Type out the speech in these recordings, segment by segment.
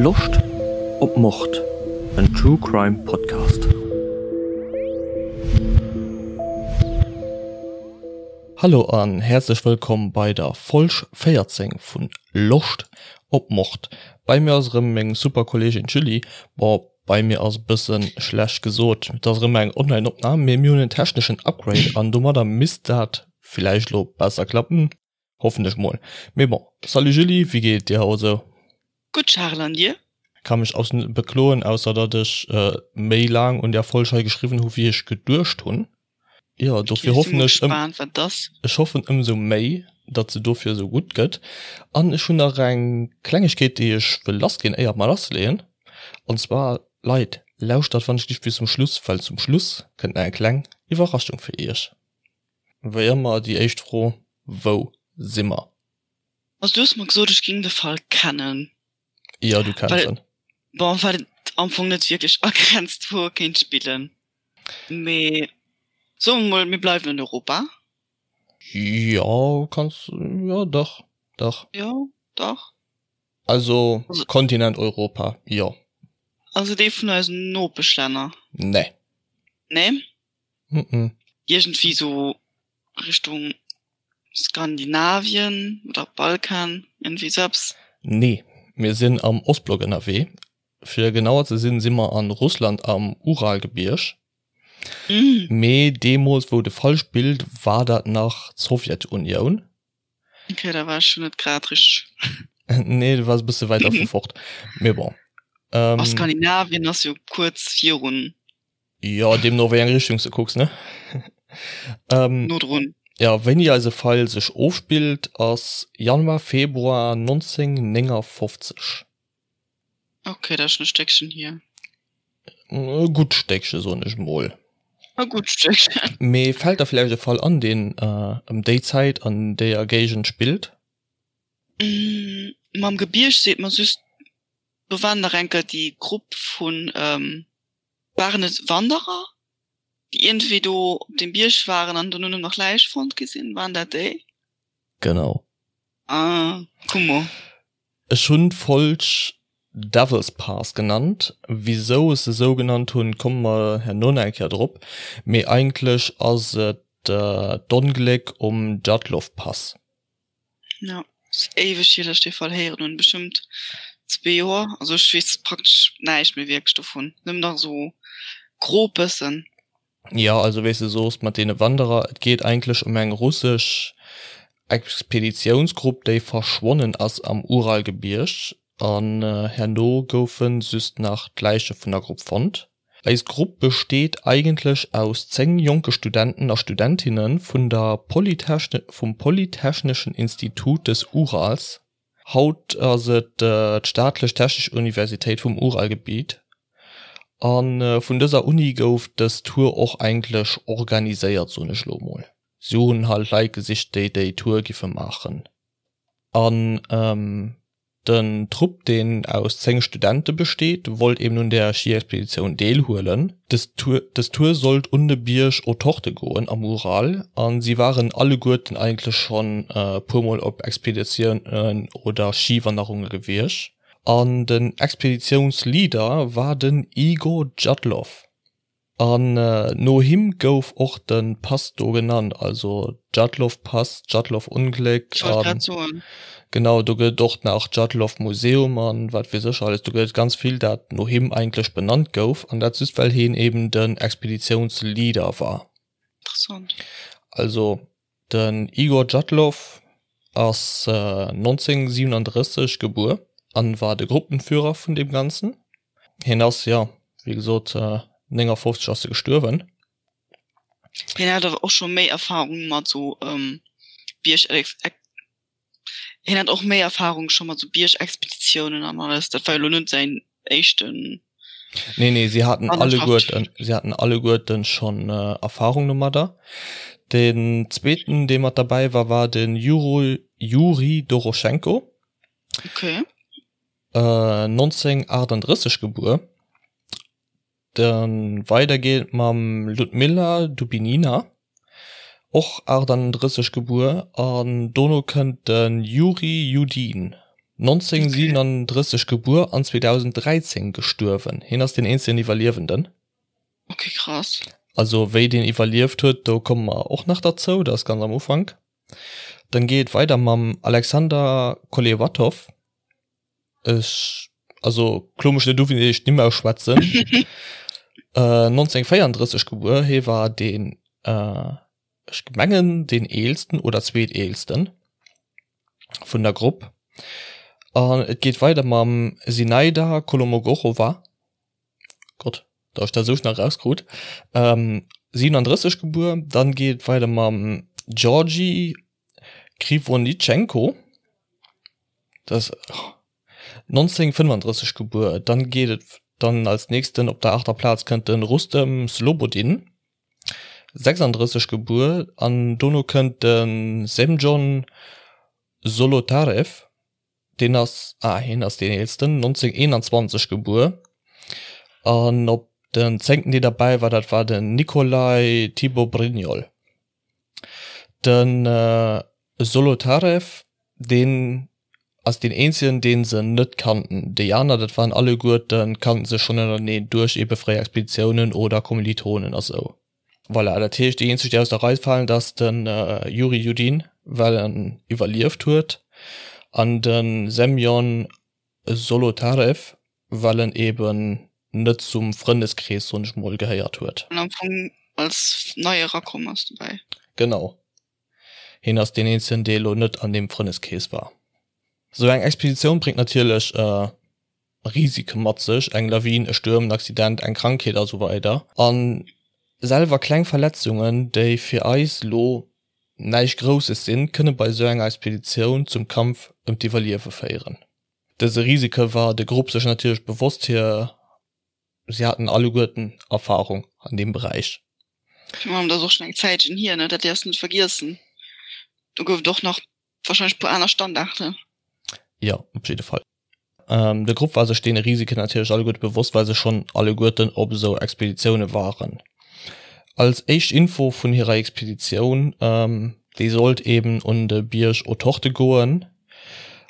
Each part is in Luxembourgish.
Loscht op Mord? En True Crime Podcast. Hallo an häerzlech wëllkomm bei der Folg 14 vun Loscht op Mord. Bei mir ass erëm meng super Kolleegin d'Julie. Bon, bei mir ass e bëssen schlecht gesot, et ass erëm eng Online-Opnam, mee mir hunn en techneschen Upgrade an domadder misst dat villäicht elo besser klappen. Hoffen ech mol. Mee bon. Salut Julie, wéi geet et dir haut esou? Gutt Charel, an dir? Ka mech absolut net bekloen, ausser datt ech méi laang un där Folg hei geschriwwen hu wéi ech geduecht hunn. Jo, dofir hoffen ech ëm, ech hoffen ëmsou méi, datt se dofir esou gutt gëtt. An ech hunn nach eng Klengegkeet déi ech wëll lassginn éier mer lassleeën. An zwar, Leit, lauschtert wann ech liicht bis zum Schluss, well zum Schluss kënnt nach eng kleng Iwwerraschung fir iech. Wéi ëmmer déi éischt Fro, Wou si mer? Also du hues mer gesot ech ging de Fall kennen. Jo, du kenns en. Bon, well et am Fong net wierklech agrenzt wou e kéint spillen. Mee soe mer mol, mir bleiwen an Europa. Jo, kanns, jo dach, dach. Jo, dach. Also Kontinent Europa, jo. Also dee vun eisen Nopeschlänner? Nee. Nee? Mm-mm. Iergendwéi sou Richtung Skandinavien oder Balkan, iergendwéi sou eppes. Nee, mir sinn am Ostblock ënnerwee. Fir genauer ze sinn, si mer an Russland am Uralgebierg. Mee deemools wou de Fall spillt, war dat nach d'Sowjetunioun. Okay, da war ech jo net grad richteg. Nee, du waars e bësse wäit dervu fort. Mee bon. A Skandinavien ass jo kuerz virun. Jo, deemno wéi eng Richtung s de kucks, ne? No drun. Jo, wéini eise Fall sech ofspillt, ass Januar, Februar 1959. Ok, dat ass schon e Stéckchen hier. E gutt Stéckche, soen ech mol. E gutt Stéckchen. Mee fält der villäicht e Fall an, deen ëm déi Zäit an deeër Géigend spillt? Mam Gebierg seet mer just, do waren nach eng Kéier déi Grupp vun, waren et Wanderer, déi iergendwéi do op deem Bierg waren an dono nach Läich fonnt gi sinn? Waren dat déi? Genau. Ah, kummer. Ech hunn d'Folg Devil's Pass genannt. Wisou ech se sou genannt hunn, komme mer herno nach eng Kéier drop. Mee eigentlech ass et d'Ongléck um Djatlov Pass. Jo, ass éiweg hier, datt ech dee Fall héieren hunn, bestëmmt zwee Joer. Also ech weess praktesch näischt méi wierklech dovun, nëmmen nach esou grob bëssen. Jo, also wéi s de soos mat deene Wanderer, et geet eigentlech ëm eng russesch Expeditiounsgrupp, déi verschwonnen ass am Uralgebierg an herno goufe just nach d'Läiche vun der Grupp fonnt. Eis Grupp besteet eigentlech aus 10 jonke Studenten a Studentinne vun der vum Polytechneschen Institut des Urals, haut ass et d'Staatlech Technesch Universitéit vum Uralgebiet, a vun dëser Uni gouf dës Tour och eigentlech organiséiert, soen ech elo mol. Si hunn halt Leit gesicht, déi déi Tour giffe maachen an Den Trupp, deen aus 10 Studente besteet, wollt eben un der Schiexpeditioun deelhuelen. Dës Tour sollt un de Bierg Otorte goen am Ural a si waren alleguerten eigentlech schonn e puer Mol op Expeditiounen oder Schiwanderunge gewiescht. An den Expeditiounsleader war den Igor Djatlov. An no him gouf och de Pass do genannt, also Djatlov-Pass, Djatlov-Ungléck. Ech wollt grad soen. Genau, do gëtt et och nach Djatlov-Museum an wat weess ech alles. Do gëtt et ganz vill, dat no him eigentlech benannt gouf, an dat just well hien eben den Expeditiounsleader war. Interessant. Also den Igor Djatlov ass 1937 gebuer an war de Gruppenführer vun deem Ganzen. Hien ass, jo, wéi gesot, 59 ass e gestuerwen. Hien hat awer och scho méi Erfahrung mat sou Bierg. Hien hat och méi Erfahrung scho mat sou Biergexpeditiounen an alles. Dat war jo lo net säin éischten. Nee, nee, si haten alleguerten, si haten alleguerten schonn Erfahrung domadder. Den zweeten, dee mat derbäi war, war den Juri, Juri Doroschenko. Okay. 1938 gebuer. Dann weider geet et mam Ludmilla Dubinina, och 38 gebuer, an dono kënnt de Juri Judin, 1937 gebuer an 2013 gestuerwen. Hien ass deen eenzegen Iwwerliewenden. Ok, krass. Also wéi deen iwwerlieft huet, do komme mer och nach derzou, dat ass ganz am Ufank. Dann geet et weider mam Alexander Kolevatov. Ech, also klo mech net u wéi ech d'Nimm ausschwätzen. 1934 gebuer, hie war deen, ech mengen deen eelsten oder zweeteelsten vun der Grupp. An et geet weider mam Sinaida Kolomogorowa. Gott, datt ech dat esou schnell erauskrut. 37 gebuer. Dann geet et weider mam Georgi Krivonischenko, dat ass 1935 gebuer. Dann geet et dann als nächsten op der aachter Plaz kënnt de Rustem Slobodin, 36 gebuer. An dono kënnt de Semjon Solotarev, Deen ass, ah hien ass deen eelsten, 1921 gebuer. An op den zéngten dee derbäi war, dat war den Nikolai Thibaut-Brignol. De Solotarev, deen ass deen eenzegen, dee se net kannten. Déi aner, dat waren alleguerten, kannten sech schonn ënnerteneen duerch ebe fréier Expeditiounen oder Kommilitonen a sou. Voilà, dat heescht déi eenzeg déi aus der Rei falen, dat ass de Yuri Yudin, well en iwwerlieft huet, an de Semjon Solotarev, well en eben net zum Frëndeskrees, soen ech mol, gehéiert huet. An am Fong als nei erakomm ass dobäi. Genau, hien ass deen eenzegen, dee elo net an deem Frëndeskrees war. Sou eng Expeditioun bréngt natierlech Risike mat sech, eng Lawin, e Stuerm, en Accident, eng Krankheet a sou weider. A selwer kleng Verletzungen, déi fir eis lo näischt Grousses sinn, kënne bei sou enger Expeditioun zum Kampf ëm d'Iwwerliewe féieren. Dëse Risike war de Grupp sech natierlech bewosst, hir si haten alleguerten Erfarung an deem Beräich. Virun allem, dat ass och schonn eng Zäitchen hier, ne, dat däerfs de net vergiessen. Do gouf et och nach wahrscheinlech e puer aner Standarten. Jo, op jidde Fall. De Grupp war sech deene Risiken natierlech alleguerte bewosst, well se schonn alleguerten op esou Expeditioune waren. Als éischt Info vun hirer Expeditioun, déi sollt eben un de Bierg Otorte goen,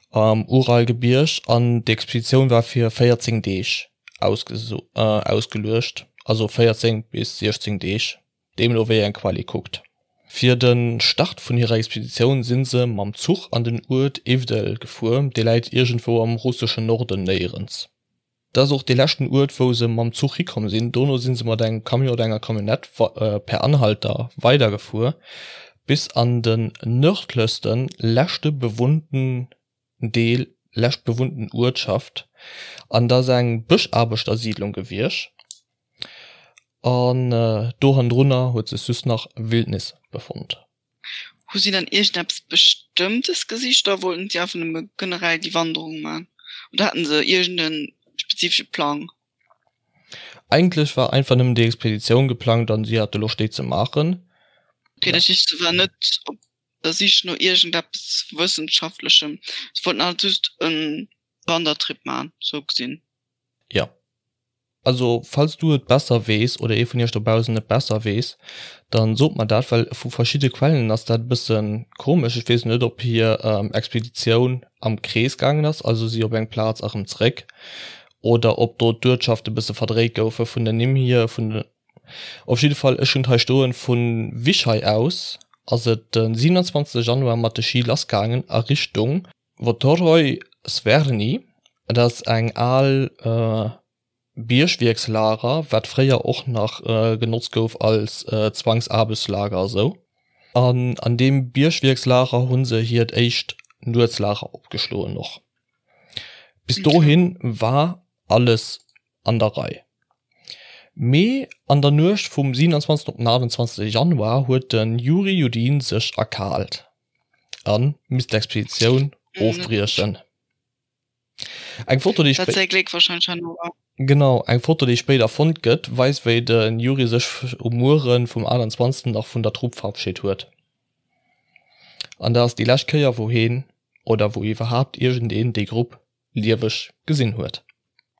am Uralgebierg, an d'Expeditioun war fir 14 Deeg ausgeluecht, also 14 bis 16 Deeg. Deemno wéi eng Quell ee kuckt. Fir de Start vun hirer Expeditioun si se mam Zuch an den Uert Ivdel gefuer, dee läit iergendwou am russeschen Norden néierens. Dat ass och dee leschten Uert wou se mam Zuch hikomm sinn. Dono si se mat engem Camion oder enger Camionnette per Anhalter weidergefuer bis an den nërdlechsten, leschte bewunnten Deel, lescht bewunnten Uertschaft an dat ass eng Bëschaarbechtersiidlung gewiescht an do hannendrunner huet sech just nach Wildnis befonnt. Hu si dann iergendeppes Bestëmmtes gesicht oder wollten si einfach nëmme generell déi Wanderung man oder haten se iergende spezifesche Plang? Eigentlech war einfach nëmmen déi Expeditioun geplangt an si hate Loscht déi ze maachen. Ok, dat heescht se war net op der Sich no iergendeppes Wëssenschaftlechem. Se wollten halt just e Wandertrip man, sou gesinn. Jo. Also falls du et besser weess oder ee vun iech dobaussen et besser weess, dann sot mer dat, well vu verschidde Quellen ass dat e bësse komesch. Ech weess net ob hir Expeditioun am Krees gaangen ass, also si op eng Plaz a rëm zeréck, oder ob do d'Uertschafte bësse verdréit goufe vun den Nimm hier, vun de Op jidde Fall, ech hunn et hei stoen, vu Wischei aus ass et de 27 Januar mat de Ski lassgaangen a Richtung Votoroj Sverny. Dat ass eng al Biergwierkslager, wat fréier och nach genotzt gouf als Zwangsaarbechtslager a sou. An an deem Biergwierkslager hu se hiert éischt Nuetslager opgeschloen och. Bis dohin war alles an der Rei. Mee an der Nuecht vum 27 op den 28 Januar huet de Juri Judin sech erkaalt a misst d'Expeditioun ofbriechen. Eng Foto, déi Genau, eng Foto, déi spéider fonnt gëtt, weist wéi de Juri sech um Muere vum 28 nach vun der Trupp verabscheet huet. An dat ass déi lescht Kéier wou heen, oder wou iwwerhaapt iergendeen déi Grupp lieweg gesinn huet.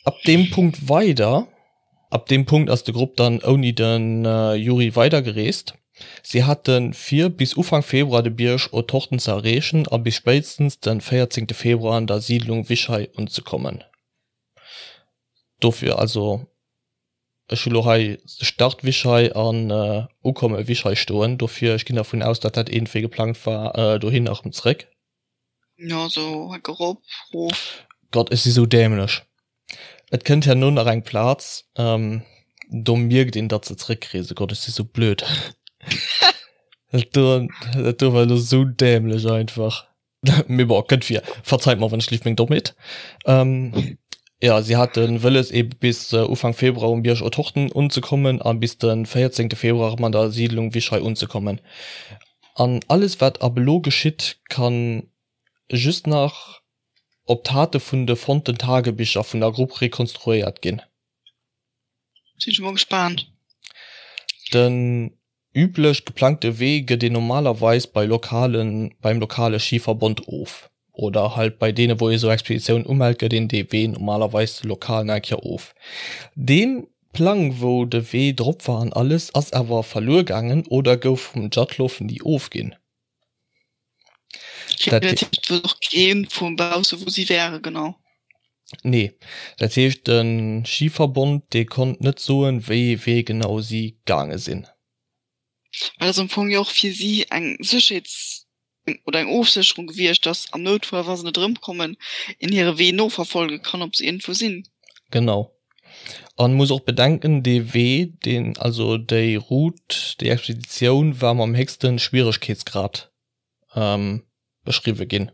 Ab deem Punkt weider, ab deem Punkt ass de Grupp dann ouni de Yuri weidergereest. Si hate vir, bis Ufank Februar de Bierg Otorten ze erreechen a bis spéitstens de 14 Februar an der Siidlung Wichai unzekommen. Dofir also, ech hu lo hei Start Wichai an Ukomme Wichai stoen, dofir ech ginn dervun aus, datt dat iergendwéi geplangt war dohin a rëm zréck. Jo, sou hecke rop, rof. Gott, ech si sou dämlech. Et kënnt herno nach eng Plaz, do mierkt een, datt se zréckreesen. Gott, ech si sou blöd. Dat do, dat do war elo sou dämlech einfach. Mee bon, kënnt vir. Verzeit mer, wann ech lift meng Dommheet. Jo, si hate wëlles ebe bis Ufank Februar um Bierg Otorten unzekommen a bis de 14 Februar erëm an der Siidlung Wischei unzekommen. An alles wat ab elo geschitt, kann just nach op d'Tate vun de fonnten Tagebicher vun der Grupp rekonstruéiert ginn. Sinn ech mol gespaant. Den üblech geplangte Wee gëtt een normalerweis bei lokalen beim lokale Schiverbond of. Oder halt bei deene wou ee sou Expeditiounen umellt gëtt een dee Wee normalerweis lokal nach eng Kéier of. Dee Plang wou de Wee drop war an alles ass awer verluer gaangen oder gouf vum Djatlov ni ofginn. Dat heescht wëll och keen vum bausse wou si wäre genau. Nee, dat heescht de Schiverbond dee konnt net soen wéi ee Wee genau si gaange sinn. Well ass am Fong jo och fir si eng Sécherheets oder eng Ofsécherung gewiescht, datt am Noutfall, wa se net erëmkommen, een hire Wee noverfolge kann, ob se iergendwou sinn. Genau. An muss och bedenken, dee Wee, deen, also déi Route, déi Expeditioun war mam héchste Schwieregkeetsgrad beschriwwe ginn.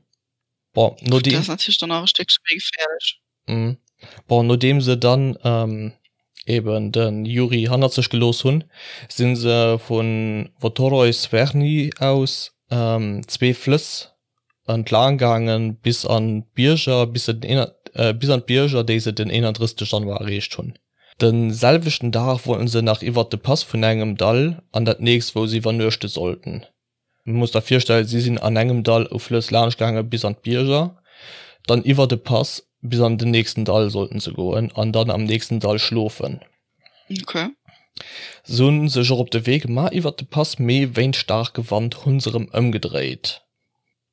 Bon, nodeem. Dat ass natierlech dann nach e Stéckche méi geféierlech. Bon, nodeem se dann eben de Yuri hannert sech gelooss hunn, si se vu Votoroi Sverny aus zwee Flëss entlaang gaange bis an d'Bierger, bis se den bis an d'Bierger, déi se den 31 Januar erreecht hunn. De selwechten Dag wollten se nach iwwert de Pass vun engem Dall an dat nächst, wou se iwwernuechte sollten. Muss der virstellen, si sinn an engem Dall u Flëss laanscht gaange bis an d'Bierger, dann iwwer de Pass bis an den nächsten Dall sollten se goen an dann am nächsten Dall schlofen. Okay. Se hunn sech och op de Wee gemaach iwwer de Pass, mee wéint staarke Wand hunn se erëm ëmgedréit.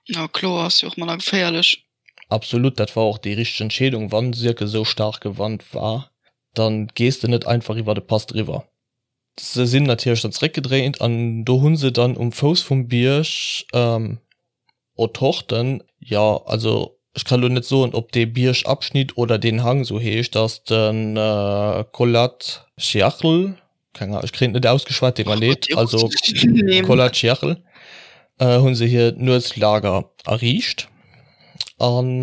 Jo kloer, ass jo och manner geféierlech. Absolut, dat war och déi richteg Entscheedung. Wann sirke sou staarke Wand war, dann gees de net einfach iwwer de Pass driwwer. Se sinn natierlech dann zeréckgedréint an do hu se dann um Fouss vum Bierg Otorten, jo also ech kann elo net soen ob dee Biergabschnitt oder deen Hang sou heescht, ass de Kholat-Syakhl, keng Ahnung, ech kréien et net ausgeschwat, deet mer leed, also Kholat-Syakhl hu se hiert Nuetslager erriicht an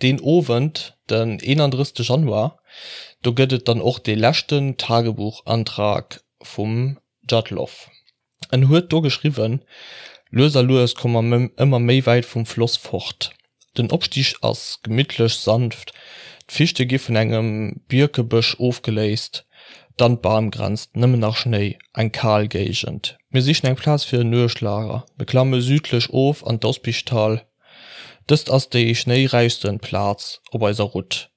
Deen Owend, den 31 Januar, do gëtt et dann och dee leschten Tagebuchantrag vum Djatlov. En huet do geschriwwen, Lues a lues komme mer ëmmer méi wäit vum Floss fort. Den Opstig ass gemittlech, sanft, d'Fichte gi vun engem Bierkebësch ofgeléist, dann d'Bamgrenz, nëmmen nach Schnéi, eng kal Géigend. Mir sichen eng Plaz fir en Nuechtlager. Mir klamme südlech of an d'Ospichtal. Dëst ass déi schnéiräichsten Plaz op eiser Route.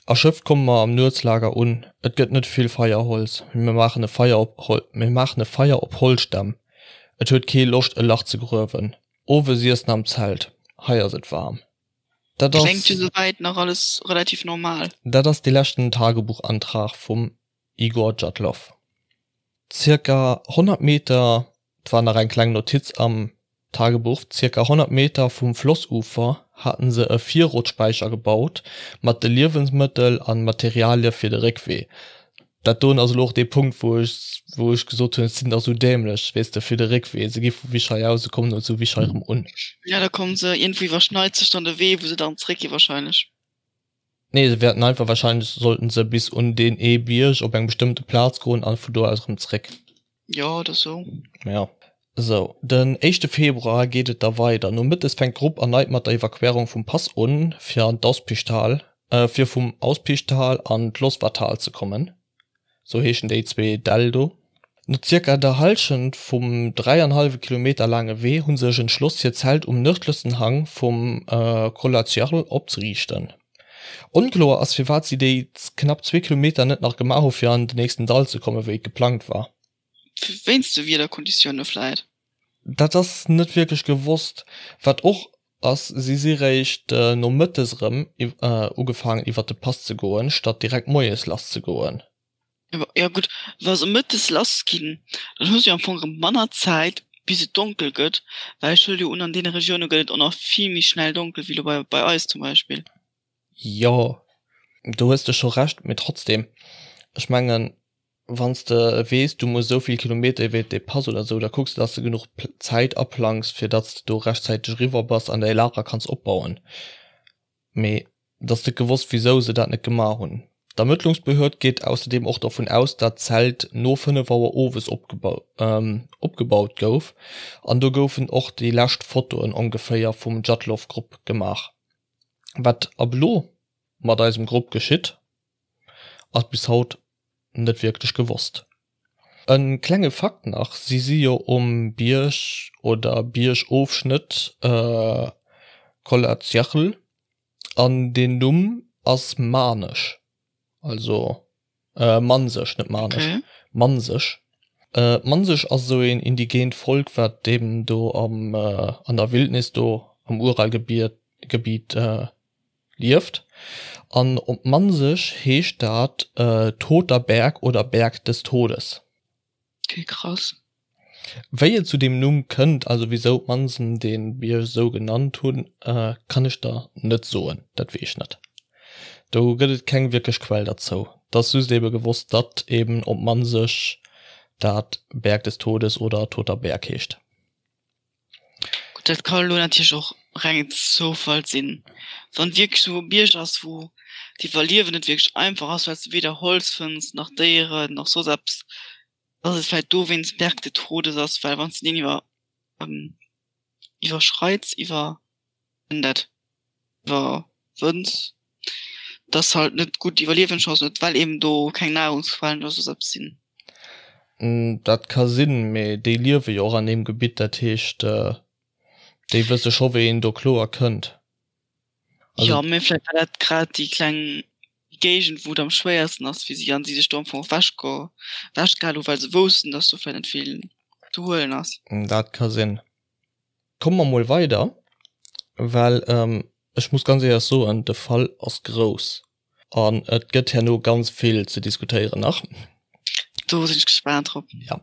Erschöpft komme mer am Nuetslager un. Et gëtt net vill Feierholz, mee mir maachen e Feier op mir maachen e Feier op Holzstämm. Et huet kee Loscht e Lach ze gruewen. Owes iessen am Zelt, hei ass et waarm. Dat ass. Kléngt jo souwäit nach alles relativ normal. Dat ass dee leschten Tagebuchantrag vum Igor Djatlov. Zirka 100 Meter, 't war nach eng kleng Notiz am Tagebuch, zirka 100 Meter vum Flossufer haten se e Virrotspäicher gebaut mat de Liewensmëttel an Materialie fir de Réckwee. Dat doen ass elo och dee Punkt wou ech wou ech gesot hunn, et sinn dach sou dämlech, weess de, fir de Réckwee. Se gi vu Wischei aus, se kommen elo zu Wischei erëm un. Ja, da kommen se, iergendwou iwwerschneit sech dann de Wee wou se dann zréckgi wahrscheinlech. Nee, se wäerten einfach, wahrscheinlech sollten se bis un deen ee Bierg op eng bestëmmte Plaz goen an vu do aus erëm zréck. Jo, oder sou. Ja. Sou, den éischte Februar geet et da weider. Nomëttes fänkt d'Grupp erneit mat der Evakuéierung vum Pass un, fir an d'Auspichtal, fir vum Auspichtal an d'Losvatal ze kommen. Sou heeschen déi zwee Däll do. No zirka der Hallschent vum dräianhallwe Kilometer laange Wee hu sech entschloss hiert Zelt um nërdlechsten Hang vum Kholat-Syakhl opzeriichten. Onkloer ass firwat si déi knapp zwee Kilometer net nach gemaach hu fir an den nächsten Dall ze kommen, wéi et geplangt war. Wéinst de Wiederkonditioune vläit? Dat ass net wierklech gewosst. Wat och ass, si si réischt nomëttes erëm ugefaangen iwwer de Pass ze goen, statt direkt moies lass ze goen. Jo gutt, wa se mëttes lass ginn, dann hu se jo am Fong erëm manner Zäit bis et donkel gëtt, well ech huele jo un, an deene Regioune gëtt et och nach vill méi schnell donkel wéi elo bei eis zum Beispill. Jo, do hues de scho Recht, mee trotzdem, ech mengen, wann s de weess, du muss esou vill Kilometer iwwert dee Pass oder esou, da kucks de, dass de genuch Zäit aplangs, fir datt s de do rechtzäiteg eriwwer bass an däi Lager kanns opbauen. Mee et ass net gewosst, wisou se dat net gemaach hunn. D'Ermëttlungsbehörd geet ausserdeem och dervun aus, dat d'Zelt no 5 Auer owes opgebaut gouf an do goufen och déi lescht Fotoen ongeféier vum Djatlov-Grupp gemaach. Wat ab elo mat eisem Grupp geschitt, ass bis haut net wierklech gewosst. E klenge Fakt nach, Si si jo um Bierg oder Biergofschnëtt Kollazjachl an deen Numm ass manesch, also mansesch, net manesch, mansesch. Mansesch ass esou een indigeent Volk, wat eben do am an der Wildnis do am Uralgebiet lieft. An op Mansesch heescht dat Toter Berg oder Berg des Todes. Okay, krass. Wéi et zu deem Numm kënnt, also wisou d'Mansen dee Bierg esou genannt hunn, kann ech der net soen, dat weess ech net. Do gëtt et keng wierklech Quell derzou. Et ass just ebe gewosst, datt eben op Mansesch dat Berg des Todes oder Toter Berg heescht. Gutt, dat ka elo natierlech och rengen Zoufall sinn, wann et wierklech esou e Bierg ass, wou d'Iwwerliewen net wierklech einfach ass, well s de weder Holz fënns, nach Déieren, nach soss eppes, dass et vläicht dowéinst Berg des Todes ass, well wann s de deen iwwer iwwerschreits, iwwer en dat iwwerwënns, dass halt net gutt Iwwerliewenschancen huet, well eben do keng Nahrungsquellen oder soss eppes sinn. Dat ka sinn, mee déi liewe jo och an deem Gebitt, dat heescht, déi wësse scho wéi een do kloer kënnt. Jo, mee vläicht war dat grad déi kleng Géigend, wou et am schwéiersten ass fir si an si sech do am Fong och ewechgehal hu, well se woussten, dass do vläicht net vill ze huelen ass. Dat ka sinn. Komme mer mol weider, well ech muss ganz éierlech soen, de Fall ass grouss an et gëtt herno ganz vill ze diskutéieren nach. Do sinn ech gespaant drop. Jo.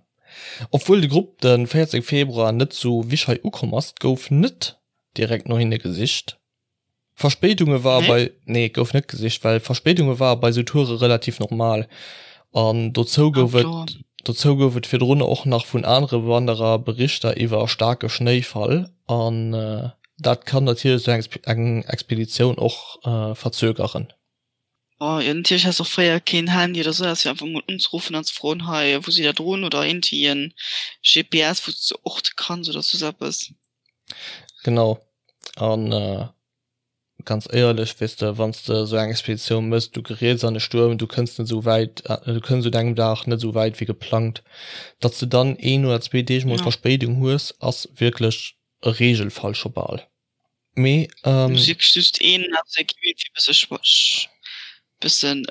Obwuel de Grupp de 14 Februar net zu Wischei ukomm ass, gouf net direkt no hinne gesicht. Verspéidunge ware bei, nee gouf net gesicht, well Verspéidunge ware bei sou Toure relativ normal an dozou gouf et dozou gouf et virdrun och nach vun anere Wanderer Berichter iwwer staarke Schnéifall an dat kann natierlech sou eng Expeditioun och verzögeren. Oh jo, natierlech has och fréier keen Handy oder sou, fir einfach mol unzeruffen an ze froen, hei wou sidd der drun oder iergendwéi en GPS wou s de orte kanns oder soss eppes. Genau an ganz éierlech, weess de, wann s de esou eng Expeditioun mëss, du geriets an e Stuerm, du kënns net esou wäit, du kënns un engem Dag net esou wäit wéi geplangt, datt s de dann een oder zwee Deeg mol Verspéidung hues, ass wierklech e Reegelfall scho bal. Mee Muss wierklech just een aus der Equipe fir bësse bëssen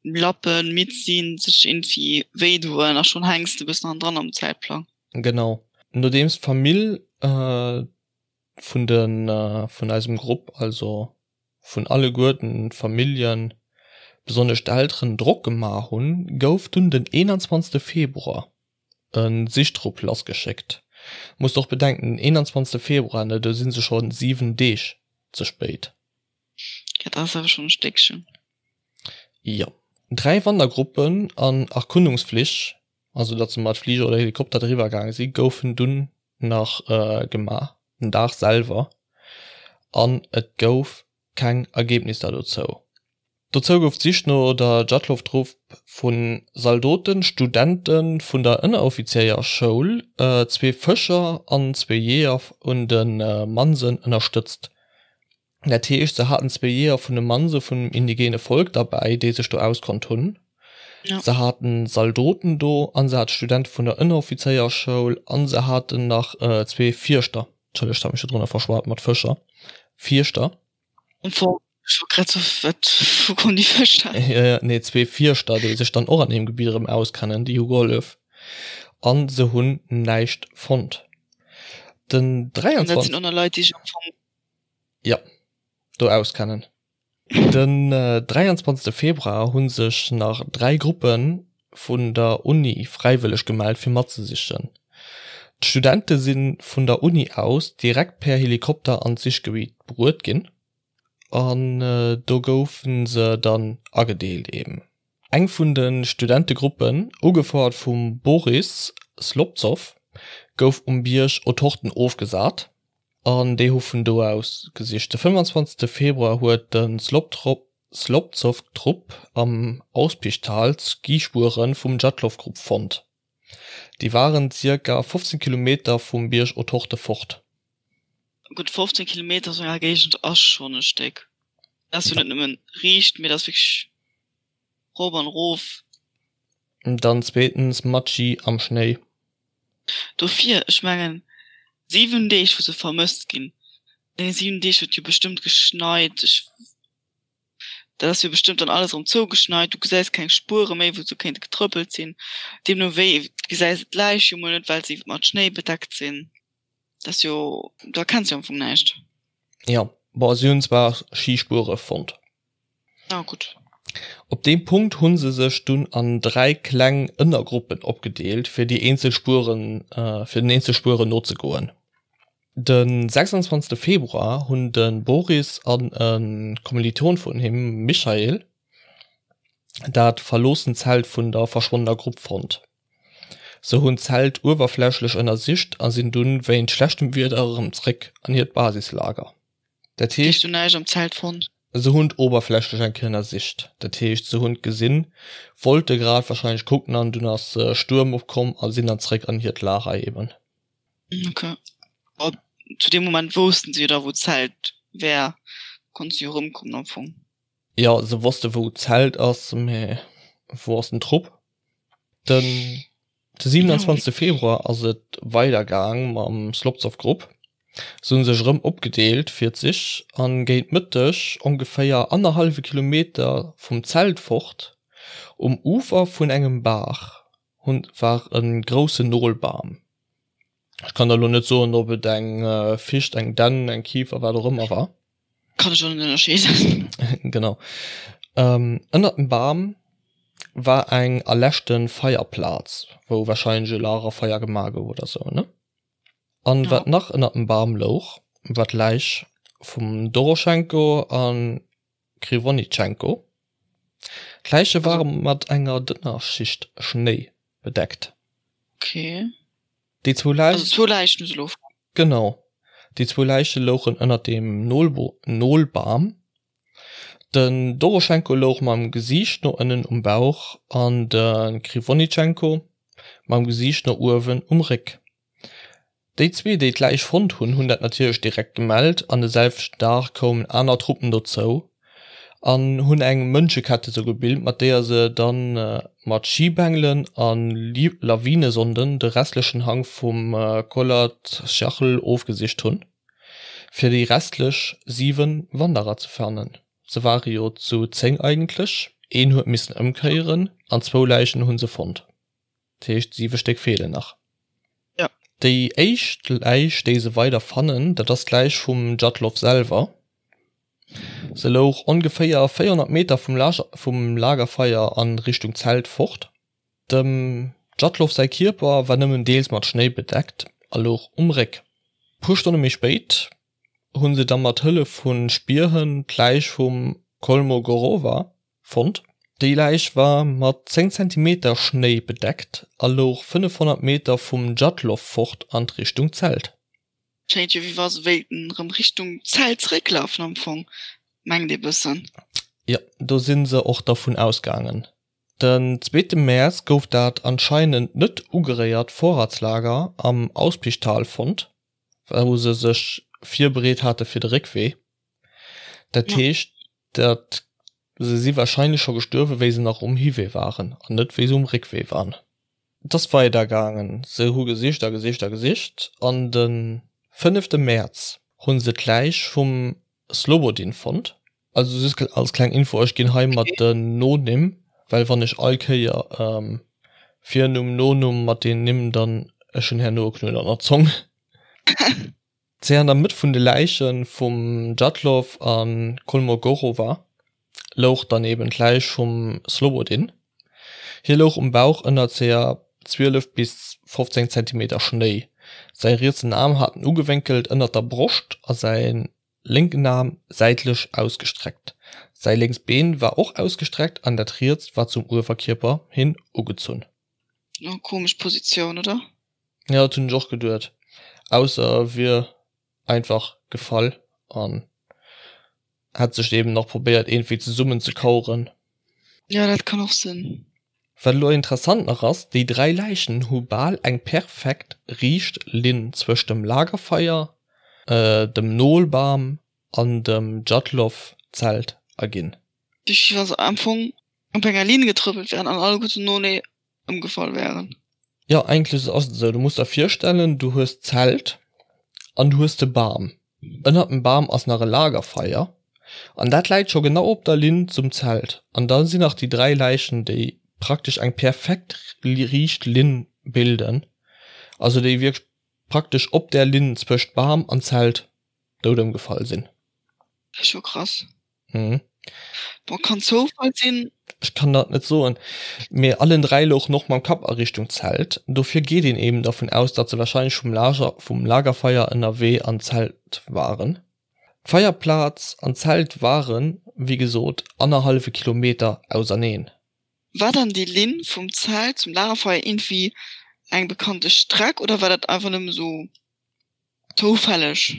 lappen, midd sinn, sech iergendwéi wéi doen a schonn hänks de bëssen hannendran am Zäitplang. Genau. Nodeems d'Famill vun de vun eisem Grupp, also vun alleguerten d'Familljen, besonnesch d'Elteren, Drock gemaach hunn, gouf dunn den 21 Februar e Sichtrupp lassgeschéckt. Musst och bedenken, den 21 Februar, ne, do si se scho 7 Deeg ze spéit. Dat ass awer schonn e Stéckchen. Jo. 3 Wandergruppen an Erkundungsflich, also datt se mat Fliger oder Helikopter driwwer gaange si, goufen dunn nach gemaach, den Dag selwer, an et gouf keng Ergebnisser dozou. Dozou gouf d'Sich no der Djatlov-Trupp vu Zaldoten, Studente vun der Ënneroffizéierschoul, zwee Fëscher an zwee Jeeër un de Mansen ënnerstëtzt. Dat heescht, se haten zwee Jeeër vun de Manse vum indigene Volk derbäi, déi sech do auskonnt hunn. Se haten Zaldoten do a se hate Studente vun der Ënneroffizéierschoul a se haten nach zwee Fierschter, Entschëllegt, hat mech do drënner verschwat mat Fëscher, Fierschter. Ech wollt grad soen, wat, wou kommen déi Fësch her? Ja, ja, nee, zwee Fierschter, déi sech dann och an deem Gebitt erëm auskennen, déi hu gehollef. An se hunn näischt fonnt. Den 23. Dat sinn och nach Leit, déi sech am Fong. Jo, do auskennen. Den 23. Februar hu sech nach 3 Gruppe vun der Uni fräiwëlleg gemellt fir matzesichen. D'Studente si vun der Uni aus direkt per Helikopter an d'Sichgebitt bruet ginn an do goufe se dann agedeelt eben. Eng vun de Studentegruppen, ugefouert vum Boris Slobzow, gouf um Bierg Otorten ofgesat. An déi hu vun do aus gesicht. De 25 Februar huet de Slobzow-Trupp am Auspichtal d'Skispuere vum Djatlov-Grupp fonnt. Déi waren zirka 15 Kilometer vum Bierg Otorte fort. Gutt 15 Kilometer esou enger Géigend ass schonn e Stéck. Dat ass jo net nëmmen riicht, mee dat ass wierklech rop an erof. Dann zweetens mat Ski am Schnéi. Dofir, ech mengen, 7 Deeg wou se vermësst ginn, an deene 7 Deeg huet jo bestëmmt geschneit, ech, dat ass jo bestëmmt dann alles erëm zougeschneit, du gesäis keng Spuere méi wou se kéinte getrëppelt sinn, deemno wéi gesäis de d'Läich jo mol net, well se mat Schnéi bedeckt sinn, dat ass jo, do erkenns jo am Fong näischt. Jo, bon, si hunn zwar Skispuere fonnt. Ah, gutt. Op deem Punkt hu se sech dunn an 3 kleng Ënnergruppen opgedeelt, fir déi eenzel Spueren, fir den eenzel Spueren nozegoen. De 26. Februar hunn de Boris an e Kommiliton vun him, Michail, dat verloossent Zelt vun der verschwonnener Grupp fonnt. Se hunn d'Zelt uewerflächlech ënnersicht a sinn dunn wéint schlechtem Wieder erëm zréck an hiert Basislager. Dat heescht. Hues du näischt am Zelt fonnt? Se hunn d'Oberflächlech eng Kéier ënnersicht. Dat heescht, se hunn gesinn, wollte grad wahrscheinlech kucken an dunn ass Stuerm opkomm a sinn dann zréck an hiert Lager eben. Ok. Bon, zu deem Moment woussten se jo da wou d'Zelt wär, konnte se jo erëmkommen am Fong. Jo, se wosste wou d'Zelt ass, mä wou ass den Trupp? Den de 27. Februar ass et weider gaang mam Slobzow Grupp. Se hunn sech erëm opgedeelt fir d'Sich an géint Mëtteg, ongeféier annerhallwe Kilometer vum Zelt fort, um Ufer vun engem Baach, hunn war e groussen Nolbam. Ech kann der elo net soen, ob et eng Ficht, eng Dänn, eng Kifer, wat och ëmmer war. Kann ech och net ënnerscheeden. Genau. Ënnert dem Bam war eng erläschte Feierplaz, wou warscheinlech e Lagerfeier gemaach gouf oder sou, ne? An wat nach ënnert dem Bam louch, war d'Läich vum Doroschenko a Kriwonitschenko. D'Läiche ware mat enger dënner Schicht Schnéi bedeckt. Okay. Déi zwou Läichen. Also zwou Läichen hu se elo fonnt. Genau. Déi zwou Läiche louchen ënnert dem Nolbam. Den Doroschenko louch mam Gesiicht no ënnen um Bauch an de Kriwonitschenko mam Gesiicht no uewen um Réck. Déi zwee, déi d'Läich fonnt hunn, hunn dat natierlech direkt gemellt an de selwechten Dag koumen aner Truppen dozou an hunn eng Mënschekette sou gebilt, mat deeër se da mat Schibengelen a Lawinesonden de restlechen Hank vum Kholat-Syakhl ofgesicht hunn, fir déi restlech 7 Wanderer ze fannen. Se ware jo zu 10 eigentlech, een huet missen ëmkéieren an zwou Läichen hu se fonnt. Dat heescht 7 Stéck feelen nach. Ja. Déi éischt Läich, déi se weider fannen, dat ass d'Läich vum Djatlov selwer. Se louch ongeféier 400 Meter vum vum Lagerfeier a Richtung Zelt fort. Dem Djatlov säi Kierper war nëmmen deels mat Schnéi bedeckt a louch um Réck. Puer Stonne méi spéit hu se da mat Hëllef vu Spierhënn d'Läich vum Kolmogorova Fonnt. Déi Läich war mat 10 Zentimeter Schnéi bedeckt a louch 500 Meter vum Djatlov fort an d'Richtung Zelt. Schéngt jo wéi wa se wéilten rëm Richtung Zelt zerécklafen am Fong, mengt ee bëssen. Jo, do si se och dervun ausgaangen. Den zweete Mäerz gouf dat anscheinend net ugeréiert Vorratslager am Auspichtal fonnt, wou se sech virbereet hate fir de Réckwee. Dat heescht, dat se si warscheinlech scho gestuerwen, wéi se nach um Hiwee waren an net wéi se um Réckwee waren. Et ass weider gaangen, se hu gesicht a gesicht a gesicht an de fënnefte Mäerz hu se d'Läich vum Slobodin fonnt. Also just als kleng Info, ech ginn hei mat den Nonimm, well wann ech all Kéier. Virnumm, Nonumm mat den Nimm dann, ech hunn herno e Knuet an der Zong. Ze an der Mëtt vun de Läiche vum Djatlov a Kolmogorowa louch dann eben d'Läich vum Slobodin. Hie louch um Bauch ënner ca 12 bis 15 Zentimeter Schnéi. Säi rietsen Aarm hat en ugewénkelt ënner der Broscht a säi lénken Aarm säitlech ausgestreckt. Säi lénks Been war och ausgestreckt an dat rietst war zum Uewerkierper hin ugezunn. Oh, komesch Positioun, oder? Jo, dat hunn ech och geduet. Ausser e wier einfach gefall an hätt sech eben nach probéiert iergendwéi zesummen ze kaueren. Jo, dat kann och sinn. Wat elo interessant nach ass, déi 3 Läichen hu bal eng perfekt riicht Linn zwëscht dem Lagerfeier, dem Nolbam an dem Djatlov-Zelt erginn. Wéi wa se am Fong op enger Linn getrëppelt wären an alleguerten noenee ëmgefall wären. Jo, eigentlech ass et esou. Du muss der virstellen, du hues d'Zelt an du hues de Bam. Ënnert dem Bam ass nach e Lagerfeier an dat läit scho genau op der Linn zum Zelt. An da sinn nach déi 3 Läichen, déi praktesch eng perfekt riicht Linn bilden, also déi wierklech praktesch op där Linn zwëscht Bam an Zelt dout ëmgefall sinn. Dat ass scho krass. Mhm. Bon, kann Zoufall sinn. Ech kann dat net soen, mee allen 3 louchen och mam Kapp a Richtung Zelt. Dofir geet een eben dervun aus, datt se warscheinlech vum Lager vum Lagerfeier ënnerwee an d'Zelt waren. D'Feierplaz an d'Zelt waren, wéi gesot, annerhallwe Kilometer auserneen. War dann déi Linn vum Zelt zum Lagerfeier iergendwéi eng bekannte Streck oder war dat einfach nëmme sou zoufälleg?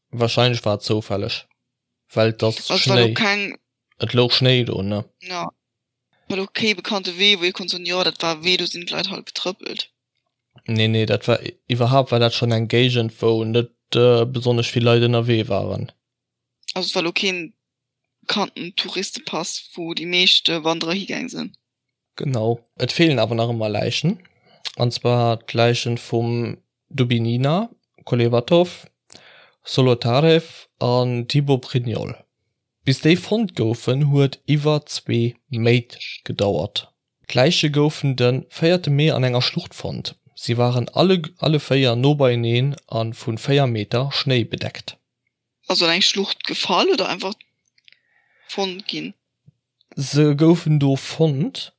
Warscheinlech war et zoufälleg. Well et ass Also war do Schnéi. keng. Et louch Schnéi do, ne? Jo, war do kee bekannte Wee, wou ee konnt soen, jo, dat war e Wee, do sinn d'Leit halt getrëppelt. Nee, nee, dat war, iwwerhaapt war dat schonn eng Géigend, wou net besonnesch vill Leit ënnerwee waren. Also et war lo keen bekannten Touristepass, wou déi meescht Wanderer higaang sinn. Genau. Et feelen awer nach ëmmer Läichen, an zwar d'Läichen vum Dubinina, Kolevatov, Solotarev an Thibaut-Brignol. Bis déi fonnt goufen, huet iwwer zwee Méint gedauert. D'Läiche goufen de véierte Mee an enger Schlucht fonnt. Si waren alle alle véier no beieneen a vu 4 Meter Schnéi bedeckt. Also an eng Schlucht gefall oder einfach fonnt ginn? Se goufen do fonnt.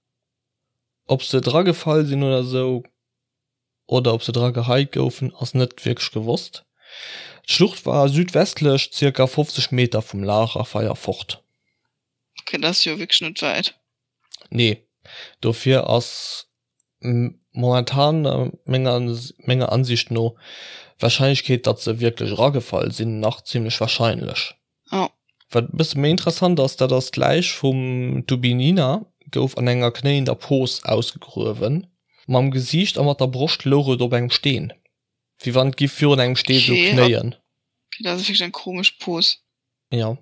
Ob se dragefall sinn oder sou, oder ob se dra geheit goufen, ass net wierklech gewosst. D'Schlucht war südwestlech zirka 50 Meter vum Lagerfeier fort. Ok, dat ass jo wierklech net wäit. Nee, dofir ass momentan menger menger Ansicht no d'Warscheinlechkeet, datt se wierklech eragefall sinn, nach zimmlech warscheinlech. Ja. Wat e bësse méi interessant ass, dat ass d'Läich vum Dubinina gouf an enger knéiender Pos ausgegruewen. Mam Gesiicht a mat der Broscht louch et op engem Steen, wéi wann et giff virun engem Steen sou knéien. Okay, dat ass wierklech eng komesch Pos. Jo.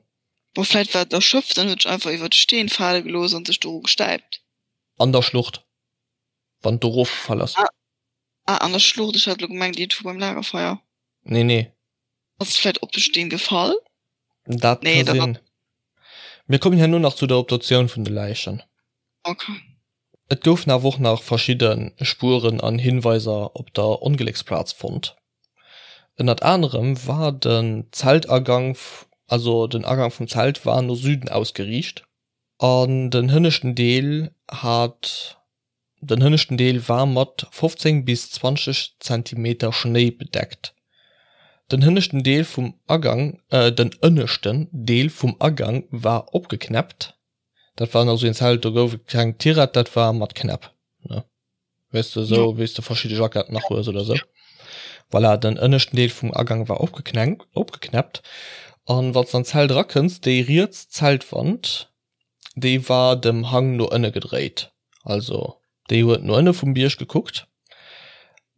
Bon, vläit war et erschöpft an huet sech einfach iwwer de Steen fale gelooss an sech doru gestäipt. An der Schlucht, wann et do erofgefall ass. Ah, ah, an der Schlucht, ech hat elo gemengt iergendwou beim Lagerfeier. Nee, nee. Ass et vläit op de Steen gefall? Dat Nee, ka dat sinn. Mir kommen herno nach zu der Obduktioun vun de Läichen. Okay. Et goufen awer och nach verschidde Spueren an Hinweiser op der Onglécksplaz fonnt. Ënnert anerem war den Zeltagank, also den Agank vum Zelt war no Süden ausgeriicht an den hënneschten Deel hat Den hënneschten Deel war mat 15 bis 20 Zentimeter Schnéi bedeckt. Den hënneschten Deel vum Agang Den ënneschten Deel vum Agang war opgeknäppt. Dat war nach sou een Zelt, do gouf et keng Tirett, dat war mat Knäpp, ne? Weess de, sou wéi s de verschidde Jacketten nach hues oder sou. Voilà, den ënneschten Deel vum Agang war opgeknäppt. An wann s de an d'Zelt erakënns, déi riets Zeltwand, déi war dem Hang no ënne gedréit, also déi huet no ënne vum Bierg gekuckt.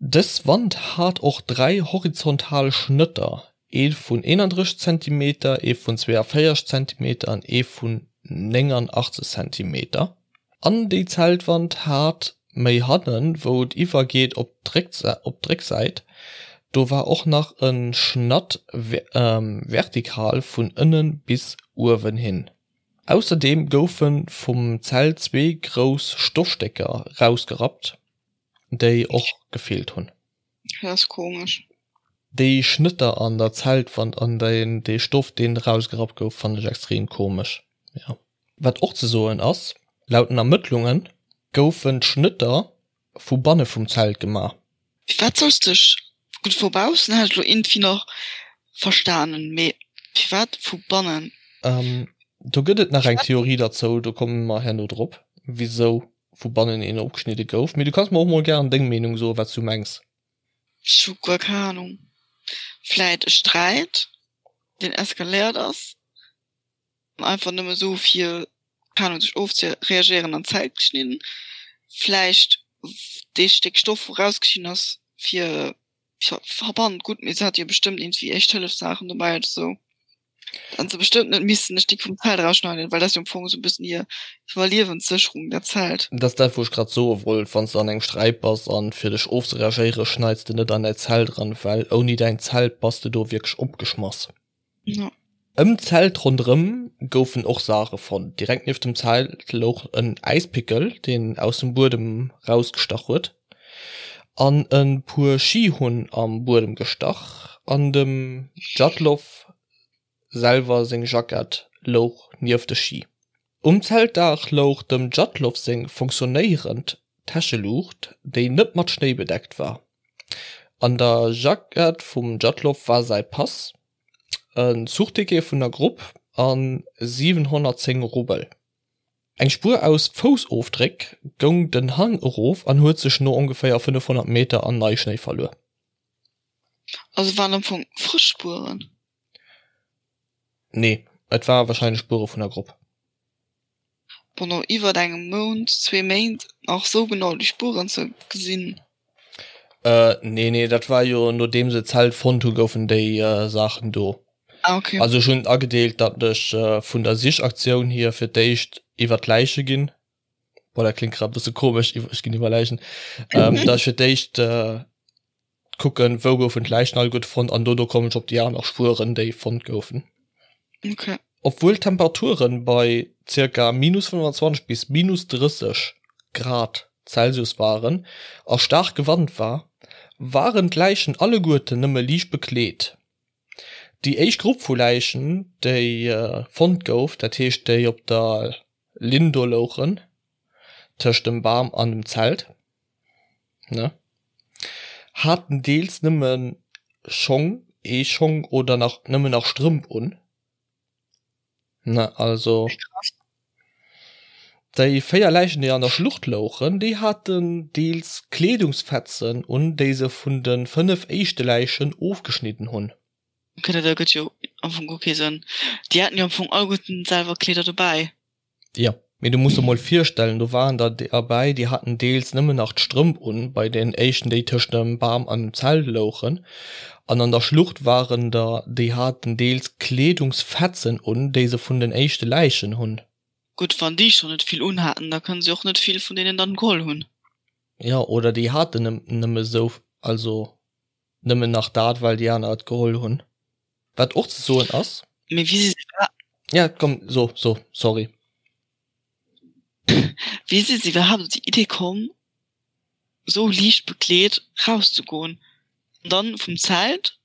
Dës Wand hat och 3 horizontal Schnëtter, ee vun 31 Zentimeter, ee vun 42 Zentimeter an ee vun 89 Zentimeter. An déi Zeltwand hat méi hannen, wou et iwwergeet op d'Récksäit, do war och nach e Schnatt vertikal vun ënne bis uewen hin. Ausserdeem goufe vum Zelt zwee grouss Stoffstécker rausgerappt. Déi och gefeelt hunn. Dat ass komesch. Déi Schnëtter an der Zeltwand an dee Stoff deen erausgerappt gouf fannen ech extrem komesch. Jo. Wat och ze soen ass, laut den Ermëttlunge goufen d'Schnëtter vu banne vum Zelt gemaach. Firwat solls dech, gutt vu baussen hätt ech lo iergendwéi nach verstanen, mee firwat vu bannen? Do gëtt et nach eng Theorie derzou, do komme mer herno drop, wisou vu bannen een opgeschnidde gouf. Mee du kanns mer och mol gären deng Meenung soen, wat s du mengs. Ech hu guer keng Ahnung. Vläit e Sträit, deen eskaléiert ass an einfach nëmme sou fir, keng Ahnung, sech ofzereagéieren an d'Zelt geschnidden. Vläicht dee Stéck Stoff, wou rausgeschnidden ass, fir Verband, gutt, mee se hat jo bestëmmt iergendwéi Éischt-Hëllef-Saachen dobäi oder sou. Dann se bestëmmt net missen e Stéck vum Zelt erausschneiden, well dat ass jo am Fong esou e bëssen hir Iwwerliewenssécherung, dat Zelt. Dat ass dat, wou ech grad soe wollt, Wann s de an engem Sträit bass an fir dech ofzereagéiere schneits de net an däi Zelt eran, well ouni däin Zelt bass de do wierklech opgeschmass. Ja. Ëm d'Zelt ronderëm goufen och Saache fonnt. Direkt nieft dem Zelt louch en Äispickel, deen aus dem Buedem rausgestach huet, an e puer Schi hunn am Buedem gestach an dem Djatlov selwer seng Jackett louch nieft de Schi. Um Zeltdaach louch dem Djatlov seng funktionéierend Täscheluucht, déi net mat Schnéi bedeckt war. An der Jackett vum Djatlov war säi Pass, en Zuchticket vun der Grupp a 710 Rubel. Eng Spuer aus Foussofdréck goung den Hang erof an huet sech no ongeféier 500 Meter an Neischnéi verluer. Also waren am Fong frësch Spueren? Nee, et ware warscheinlech Spuere vun der Grupp. Bon, no iwwert engem Mount, zwee Méint nach sou genau déi Spueren ze gesinn. Nee, nee, dat war jo nodeem se d'Zelt fonnt hu goufen déi Saachen do. Ah, okay. Also ech hunn agedeelt, datt ech vun der Sichaktioun hier fir d'éischt iwwer d'Läiche ginn. Boah, dat kléngt grad e bësse komesch, ech ginn iwwer Läichen. Datt ech fir d'éischt kucken, wou goufen d'Läichen alleguerte fonnt an dono kommen ech op déi aner Spueren, déi fonnt goufen. Okay. Obwuel d'Temperature bei zirka minus 25 bis minus 30 Grad Celsius waren a staarke Wand war, waren d'Läichen alleguerten nëmme liicht bekleet. Déi éischt Grupp vu Läichen, déi fonnt gouf, dat heescht déi op der Linn do louchen, tëscht dem Bam an dem Zelt, ne, haten deels nëmme Schong, ee Schong oder nach nëmmen nach Strëmp un, ne, also déi 4 Läichen, déi an der Schlucht louchen, déi haten deels Kleedungsfetzen un, déi se vun de 5 éischte Läichen ofgeschnidden hunn. Ok, dat ergëtt jo am Fong guer kee Sënn. Déi haten jo am Fong alleguerten selwer Kleeder dobäi. Jo, mee du muss der mol virstellen, do waren der derbäi, déi haten deels nëmmen nach d'Strëmp un, bei den éischten, déi tëscht dem Bam an dem Zelt louchen, an an der Schlucht waren der, déi haten deels Kleedungsfetzen un, déi se vun den éischte Läichen hunn. Gutt, wann déi schonn net vill unhaten, da kënne se och net vill vun deenen dann geholl hunn. Jo, oder déi haten nëmme sou, also nëmmen nach dat, well déi aner et geholl hunn. Wat och ze soen ass. Mee wéi si se iwwer. Ja, komm, so, so, sorry. Wéi si se iwwerhaapt op déi Idee komm, esou liicht bekleet rauszegoen an dann vum Zelt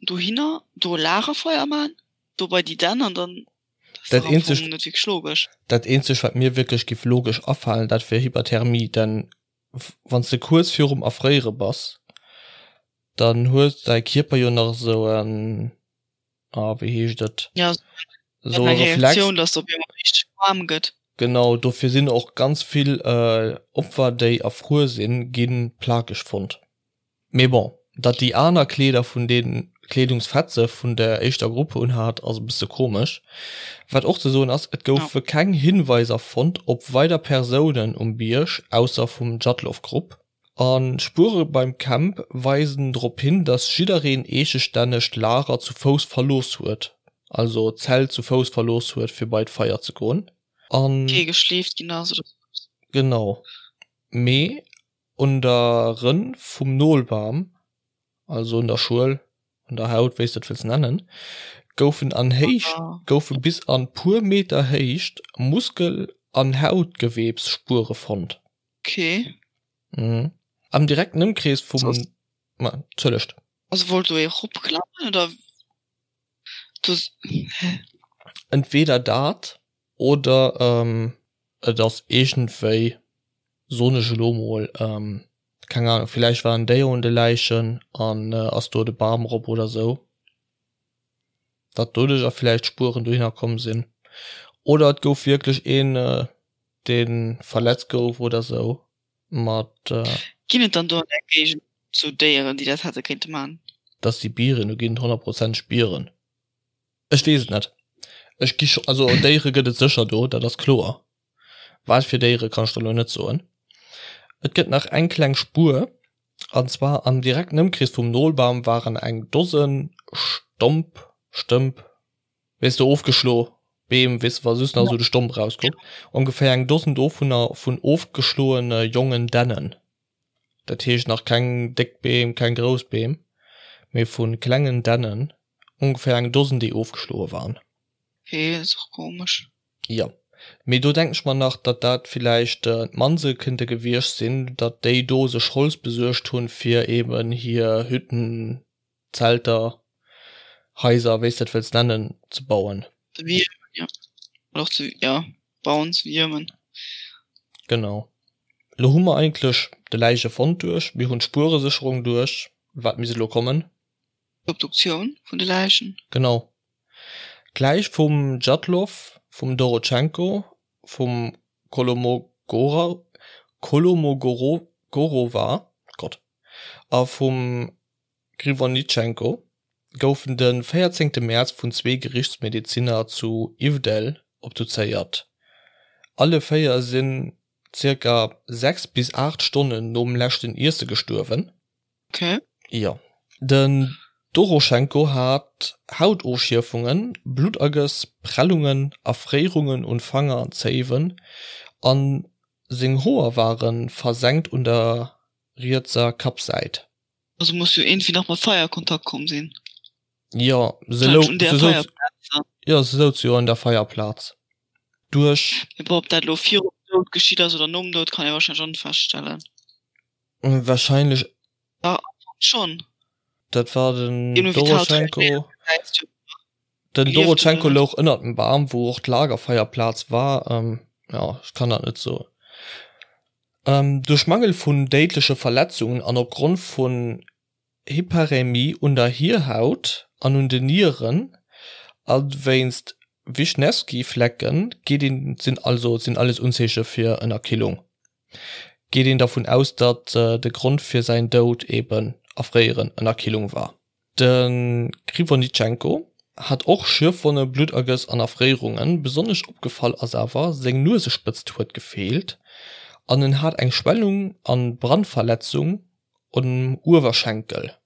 dohinner, do e Lagerfeuer man, do bei déi Dänn an dann. Dat eenzegt, net wierklech logesch. Dat eenzegt, wat mir wierklech giff logesch afalen, dat wier Hyperthermie, denn wann s de kuerz virum Erfréiere bass, dann huet däi Kierper jo nach esou en, ah wéi heescht et, Ja, esou e Reflex. Reaktioun, dass op eemol richteg waarm gëtt. Genau, dofir sinn och ganz vill Opfer, déi erfruer sinn, gi plakeg fonnt. Mee bon, datt déi aner Kleeder vun den Kleedungsfetze vun der éischter Grupp unhat, ass e bësse komesch. Wat och ze soen ass, et goufe keng Hinweiser fonnt op weider Persounen um Bierg ausser vum Djatlov-Grupp. A Spuere beim Camp weisen drop hin, datt jiddereen eegestänneg d'Lager zu Fouss verlooss huet, also d'Zelt zu Fouss verlooss huet fir bei d'Feier ze goen. An. Kee geschleeft ginn ass oder sou eppes. Genau, mee Un der Rënn vum Nolbam, also un der Schuel, un der Haut, wéi s de et wëlls nennen, goufen an Héicht, goufe bis an puer Meter Héicht Muskel an Hautgewebsspuere fonnt. Okay. Mhm. Am direkten Ëmkrees vum, ma, entschëllegt. Also wollt do ee ropklammen oder do, hä? Entweder dat oder et ass iergendwéi, soen ech elo mol, keng Ahnung, villäicht war en Déier un de Läichen an ass do de Bam erop oder sou, datt doduercher villäicht Spueren dohinner komm sinn. Oder et gouf wierklech een, dee verletzt gouf oder sou mat. Ginn et dann do an där Géigend sou Déieren, déi dat hätte kéinte man? Dat si Bieren, do ginn et honnertprozenteg Bieren. Ech weess et net. Ech gi scho, also Déiere gëtt et sécher do, dat ass kloer. Wat fir Déiere kann ech der elo net soen. Et gëtt nach eng kleng Spuer, an zwar am direkten Ëmkrees vum Nolbam waren eng Dosen Stomp, Stëmp, weess de, ofgeschlo Beem, weess de, wa just nach esou de Stomp erauskuckt, ongeféier eng Dosen dovunner vun ofgeschloene jongen Dännen. Dat heescht nach keng déck Beem, keng grouss Beem, mee vu klengen Dännen, ongeféier eng Dosen, déi ofgeschloe waren. Okay, dat ass och komesch. Jo, mee do denken ech mer nach, datt dat villäicht d'Manse kënnte gewiescht sinn, datt déi do sech Holz besuergt hunn, fir eben hir Hütten, Zelter, Haiser, wéi s de et wëlls nennen, ze bauen. Ze wiermen, jo. Oder och ze, jo, bauen, ze wiermen. Genau. Elo hu mer eigentlech de Läichefond duerch, mir hunn d'Spueresécherung duerch. Wat misst elo kommen? D'Obduktioun vun de Läichen. Genau. D'Läich vum Djatlov, vum Dorotschenko, vum Kolomogora, Kolomogorova, Gott, a vum Kriwonitschenko goufen de 14 Mäerz vun zwee Gerichtsmedezinner zu Ivdel obduzéiert. Alle 4 sinn zirka 6 bis 8 Stonnen nom leschten Iesse gestuerwen. Okay. Jo. Den Doroschenko hat Hautofschierfungen, Bluttergëss, Prellungen, Erfréierungen un Fanger an Zéiwen a seng Hoer ware versenkt un der rietser Kappsäit. Also muss jo iergendwéi nach mat Feier a Kontakt komm sinn. Jo, se lou, se souz, jo, se souz jo un der Feierplaz. Duerch. Mee bon, ob dat elo virum Doud geschitt ass oder nom Doud, kann ee warscheinlech och net feststellen. Wahrscheinlech. Ja, am Fong schon. Dat war den Doroschenko. Den Doroschenko louch ënnert dem Bam, wou och d'Lagerfeierplaz war. Jo, ech kann dat net soen. Duerch Mangel vun déidleche Verletzungen an opgrond vun Hyperämie un der Hierhaut an un den Nieren a wéinst Wischnewski-Flecke geet een, sinn also sinn alles Unzeeche fir Ënnerkillung, geet een dervun aus, datt de Grond fir säin Doud eben Erfréieren, Ënnerkillung war. De Krivonischenko hat och Schürfwonne, Bluttergëss an Erfréierungen. Besonnesch opgefall ass awer, seng Nuesespëtzt huet gefeelt an en hat eng Schwellung an Brandverletzung um Uewerschenkel.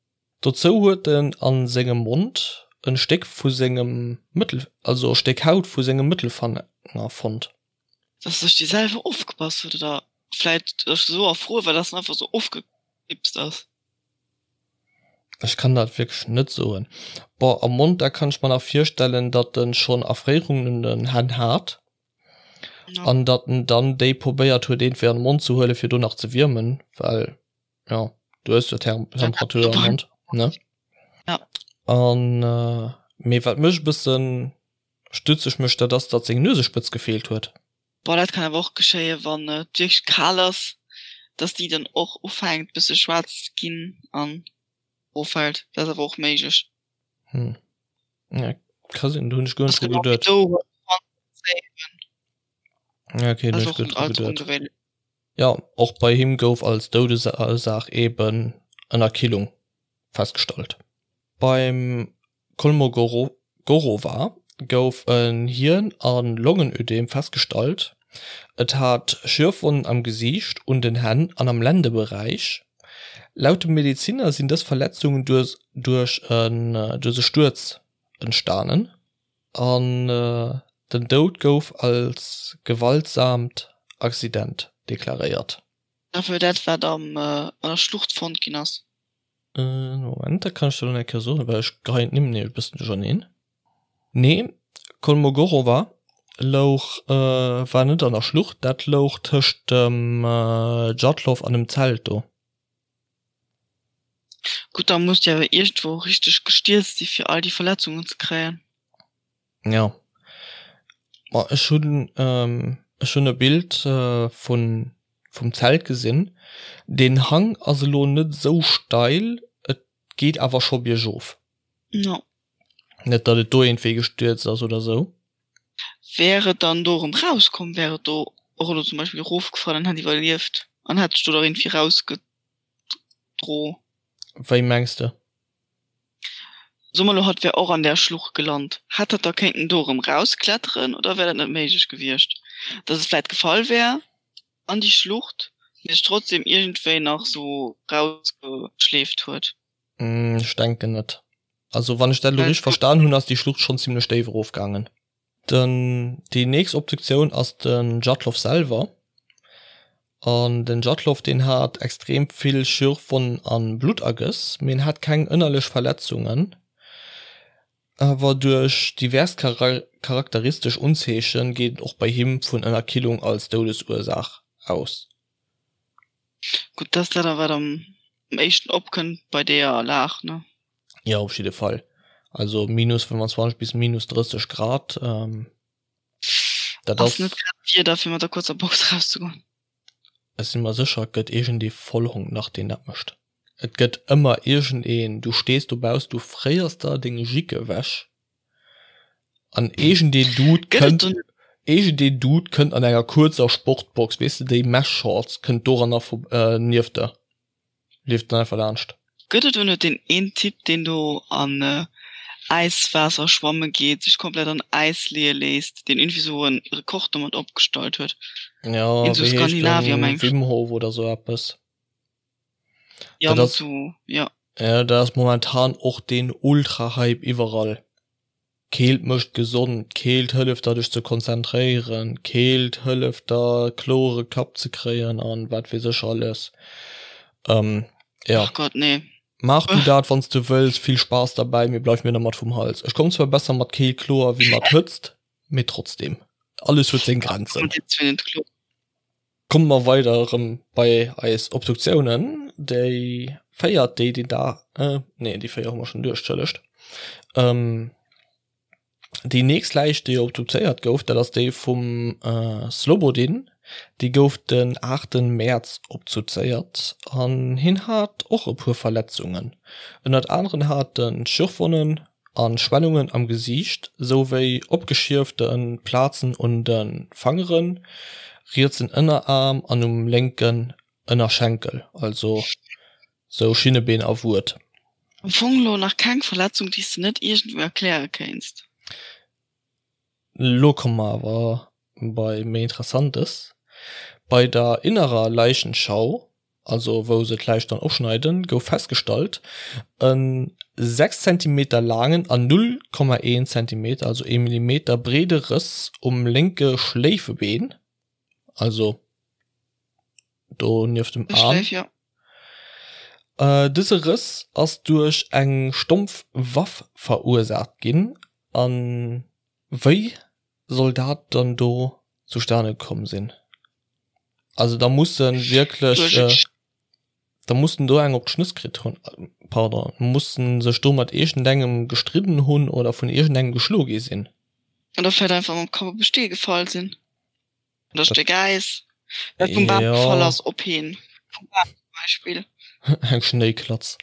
Dozou huet en a sengem Mond e Stéck vu sengem Mëttel, also e Stéck Haut vu sengem Mëttelfanger fonnt. Dass sech déi selwer ofgebass huet oder vläit esou erfruer war, dass en einfach esou ofgeknipst ass. Ech kann dat wierklech net soen. Bon, am Mond, da kann ech mer nach virstellen, datt en schonn Erfréierungen un den Hänn hat an datt en dann déi probéiert huet iergendwéi an de Mond ze huelen, fir do nach ze wiermen, well jo, du hues jo Temperatur am Mond, ne? Ja. An mee wat mech e bëssen stutzeg mécht, dat ass, datt seng Nuesespëtz gefeelt huet. Bon, dat kann awer och geschéien, wann et wierklech kal ass, dass déi dann och ufänkt bësse schwaarz ze ginn an offält. Dat ass awer och méiglech. Hm, ja, ka sinn, do hunn ech guer net dru geduet. Ja, okay, do hunn ech guer net dru geduet. Jo, och bei him gouf als Doudesursaach eben Ënnerkillung festgestallt. Beim Kolmogorova gouf en Hien a Longenödem festgestallt, et hat Schürfwonnen am Gesiicht, un den Hänn an am Lendeberäich. Laut dem Medeziner sinn dës Verletzungen duerch e Stuerz entstanen an den Doud gouf als gewaltsaamt Accident deklaréiert. Dat wat an der Schlucht fonnt ginn ass. Moment, dat kann ech der elo nach eng Kéier soen, well ech geheien d'Nimm nämlech e bëssen duercherneen. Nee, Kolmogorova louch, war net an der Schlucht, dat louch tëscht dem Djatlov an dem Zelt do. Gutt, da muss déi awer iergendwou richteg gestierzt si fir all déi Verletzungen ze kréien. Jo, ma ech hunn ech hunn e Bild vun vum Zelt gesinn. Den Hang ass elo net esou steil, et geet awer scho biergof. Jo. Net datt et do iergendwéi gestierzt ass oder esou. Wär et dann do erëm rauskomm, wär et do och elo zum Beispill erofgefall an hätt iwwerlieft an hätt sech do da iergendwéi rausgedro? Wéi mengs de? Soe mer elo, hatt wär och an där Schlucht gelant, hätt hatt da kéinten do erëm rauskletteren oder wär dat net méiglech gewiescht, datt et vläit gefall wär an déi Schlucht, mee sech trotzdem iergendwéi nach sou rausgeschleeft huet? Ech denken net. Also wann ech dat elo richteg verstan hunn, ass déi Schlucht schonn zimlech déif erofgaangen. Den, déi nächst Obduktioun ass den Djatlov selwer. An den Djatlov deen hat extrem vill Schürfwonnen an Bluttergëss, mee en hat keng ënnerlech Verletzungen. Awer duerch divers charakteristesch Unzeechen geet een och bei him vun Ënnerkillung als Doudesursaach aus. Gutt, dat ass dat wat am éischten opkënnt bei deeër Lag, ne? Jo, op jidde Fall. Also minus 25 bis minus 30 Grad, dat ass. Ass net grad d'Wieder fir mat der kuerzer Box rauszegoen. Ech si mer sécher, et gëtt iergendee Vollhong nach, deen dat mécht. Et gëtt ëmmer iergendeen, du stees dobauss, du fréiers der deng Jick ewech an iergendeen Dude kënnt, iergendeen Dude kënnt an enger kuerzer Sportbox, weess de, déi Mesh-Shorts, kënnt doranner nieft der. Leeft dann einfach laanscht. Gëtt et do net deen een Typ deen do an Äiswaasser schwamme geet, sech komplett an Äis leeë léisst, deen iergendwéi sou en Rekord domat opgestallt huet? Jo, Een sou wéi heescht Skandinavier den? meng ech. Wim Hof oder sou eppes. Jo, Dat mat ass, sou, jo. jo, dat ass momentan och deen Ultra-Hype iwwerall. Keelt mécht gesond, Keelt hëlleft der dech ze konzentréieren, Keelt hëlleft der kloere Kapp ze kréien an wat weess ech alles. Jo. Ach Gott, nee. Maach du dat wanns du wëlls, vill Spaass derbäi, mee bleif mir dermat vum Hals. Ech komm zwar besser mat Keelt kloer wéi mat Hëtzt, mee trotzdem, alles huet seng Grenzen. Komme mer weider erëm bei eis Obduktiounen. Déi véiert, déi déi da, nee déi véier hu mer schonn duerch, entschëllegt. Déi nächst Läich, déi obduzéiert gouf, dat ass déi vum Slobodin. Déi gouf den 8 Mäerz obduzéiert an hien hat och e puer Verletzungen. Ënnert aneren hat en Schürfwonnen a Schwellungen am Gesiicht souwéi opgeschierfte Plazen un de Fangeren, rietsen Ënneraarm an um lénken Ënnerschenkel, also sou Schinnebeen a Wued. Am Fong lo nach keng Verletzung déi s de net iergendwou erkläre kéinst. Lo komme mer awer bei méi Interessantes. Bei der innerer Leichenschau also wou se d'Läich dann opschneiden, gouf festgestallt, e 6 Zentimeter laangen an 0,1 Zentimeter, also ee Millimeter, breede Rëss um lénke Schléifebeen, also do nieft dem Aarm. Dëse Rëss ass duerch eng stompf Waff verursaacht ginn. A wéi soll dat dann do zustane komm sinn? Also da mussen wierklech, da mussen do eng op d'Schnëss kritt hunn, pardon, mussen sech do mat iergendengem gestridden hunn oder vun iergendengem geschlo gi sinn. Oder vläit einfach mam Kapp op e Stee gefall sinn oder Stéck Äis, dat vum Bam gefall ass op heen, vum Bam zum Beispill. Eng Schnéiklatz.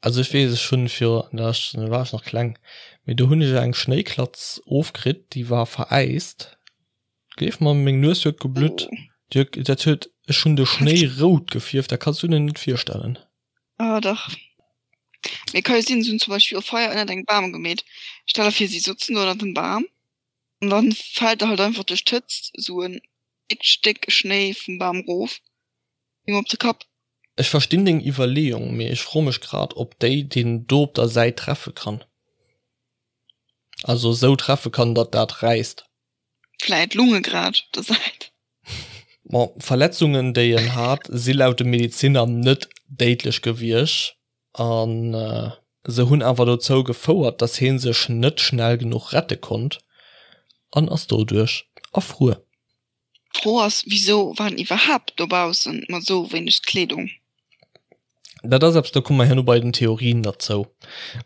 Also ech weess, ech hunn fir, da war ech nach kleng, mee do hunn ech eng Schnéiklatz ofkritt, déi war veräist. Gleef mer, meng Nues huet geblutt. Déi huet, dat huet, ech hunn de Schnéi rout gefierft, dat kanns du dir net virstellen. Ah dach. Mee ka jo sinn, se hunn zum Beispill e Feier ënnert engem Bam gemeet. Stell der vir, si sotzen do ënnert dem Bam an dann fält der halt einfach duerch d'Hëtzt esou en déckt Stéck Schnéi vum Bam rof him op de Kapp. Ech verstinn deng Iwwerleeung, mee ech froe mech grad, ob déi deen do op der Säit treffe kann. Also esou treffe kann, datt dat räisst. Vläit Lunge grad op der Säit. Bon, d'Verletzungen, déi en hat, si laut de Medeziner net déidlech gewiescht a se hunn awer dozou gefouert, datt hie sech net schnell genuch rette konnt an ass doduerch erfruer. D'Fro ass, wisou war en iwwerhaapt dobaussen mat esou wéineg Kleedung? Dat ass eppes, do komme mer herno bei den Theorien derzou,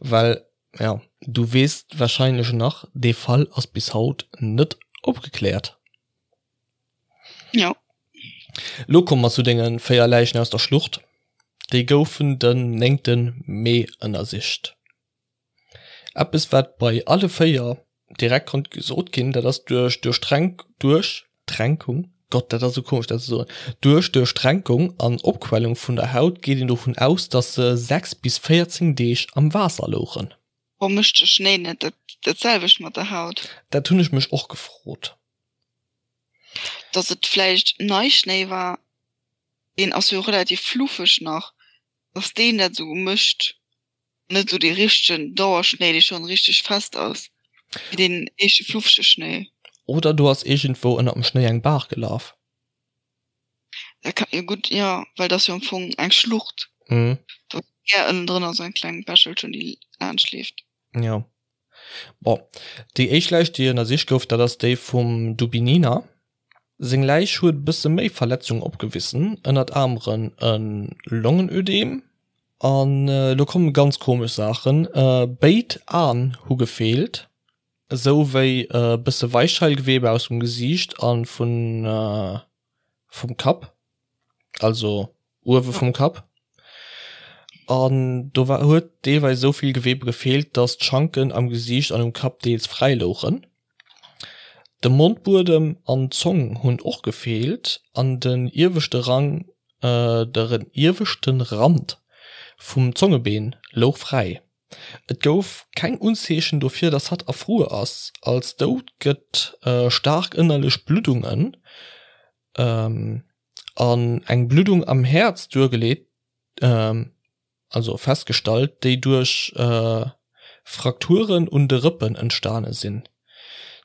well, jo, du weess warscheinlech nach, dee Fall ass bis haut net opgekläert. Jo. Lo komme mer zu denge 4 Läichen aus der Schlucht. Déi goufen den 9. Mee ënnersicht. Eppes wat bei alle 4 direkt konnt gesot ginn, dat ass duerch Duerchtränk Duerchtränkung, Gott dat ass esou komesch dat ze soen, duerch Duerchtränkung an Opquellung vun der Haut geet een dovun aus, datt se 6 bis 14 Deeg am Waasser louchen. Warum mécht de Schnéi net dat dat selwecht mat der Haut? Dat hunn ech mech och gefrot. Datt et vläicht Neischnéi war, deen ass jo relativ fluffeg nach, datt deen dat esou mécht. Net esou dee richtegen Dauerschnéi, dee schonn richteg fest ass, mee deen éischte fluffege Schnéi. Oder do ass iergendwou ënnert dem Schnéi eng Baach gelaf. Dat kann jo gutt, jo, well et ass jo am Fong eng Schlucht. Do ass gär ënnendrënner esou eng kleng Bächelchen, déi laanscht leeft. Jo. Bon, déi éischt Läich, déi ënnersicht gouf, dat ass déi vum Dubinina. Seng Läich huet e bësse méi Verletzungen opgewissen, ënnert aneren e Longenödem. An elo komme ganz komesch Saachen, Béid Aen hu gefeelt, esou wéi e bësse Weichheilgewebe aus dem Gesiicht a vum Kapp, also uewe vum Kapp. An do war huet deelweis esou vill Gewebe gefeelt, datt d'Schanken am Gesiicht an um Kapp deels fräi louchen. De Mondbuedem an d'Zong hunn och gefeelt an den ieweschte Rang de ieweschte Rand vum Zongebeen louch fräi. Et gouf keng Unzeechen dofir, datt hatt erfruer ass. Als Doud gëtt staark ënnerlech Bluddungen an eng Bluddung am Häerz duergeleet, also festgestallt, déi duerch Frakturen un de Rëppen entstane sinn.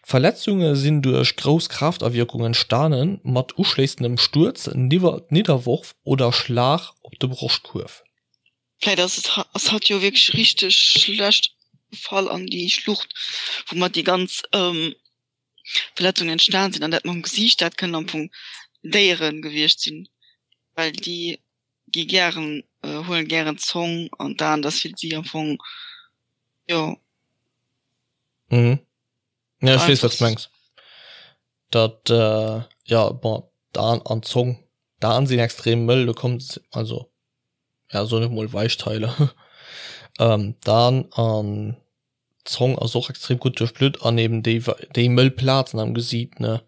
D'Verletzunge sinn duerch grouss Kraaftawierkung entstane mat uschléissendem Stuerz, Nidderworf oder Schlag op de Broschtkuerf. Vläit ass et ass hatt jo wierklech richteg schlecht gefall an déi Schlucht, woumat déi ganz Verletzungen entstan sinn an dat mam Gesiicht, dat kënnen am Fong Déiere gewiescht sinn, well déi gi gären, huelen gären d'Zong an d'Aen, dat ass fir si am Fong, jo. Mhm. Ja, ech weess, wat s mengs. Dat, jo, bon, d'Aen an d'Zong, d'Aen sinn extrem mëll, do kommt, also, ja, soen ech mol Weichteile. D'Aen an D'Zong ass och extrem gutt duerchblutt an eben déi déi mëll Plazen am Gesiit ne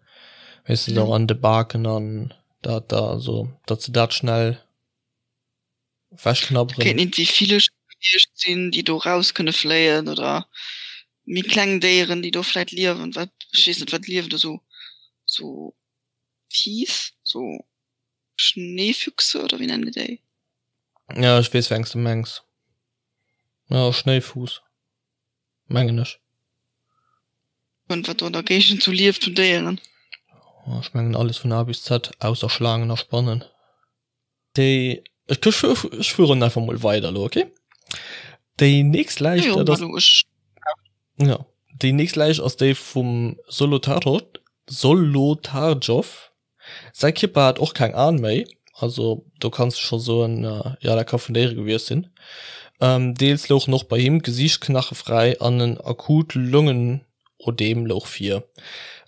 weess de och an de Baken an dat da also datt se dat schnell wechknabberen. Kéinten iergendwéi Villecher gewiescht sinn, déi do raus kënne fléien oder méi kleng Déieren, déi do vläit liewen, wat ech weess net wat liewen do sou sou Fiiss, sou Schneefüchse oder wéi nennen déi déi? Ja ech weess wéi eng s de mengs. Ja, Schnéifuuss, mengen ech. Und wat do an der Géigend sou lieft vun Déieren. Ech mengen alles vun A bis Z, ausser Schlaangen a Spannen. Déi, ech, ech fueren einfach mol weider elo, okay? Déi nächst Läich, dat ass, ja, déi nächst Läich ass déi vum Solotarow, Solotarjow. Säi Kierper hat och keng Aen méi, also do kanns de scho soen, jo dat ka vun Déiere gewiescht sinn. Deels louchen och bei him d'Gesiichtsknache fräi an en akut Longenödem louch vir.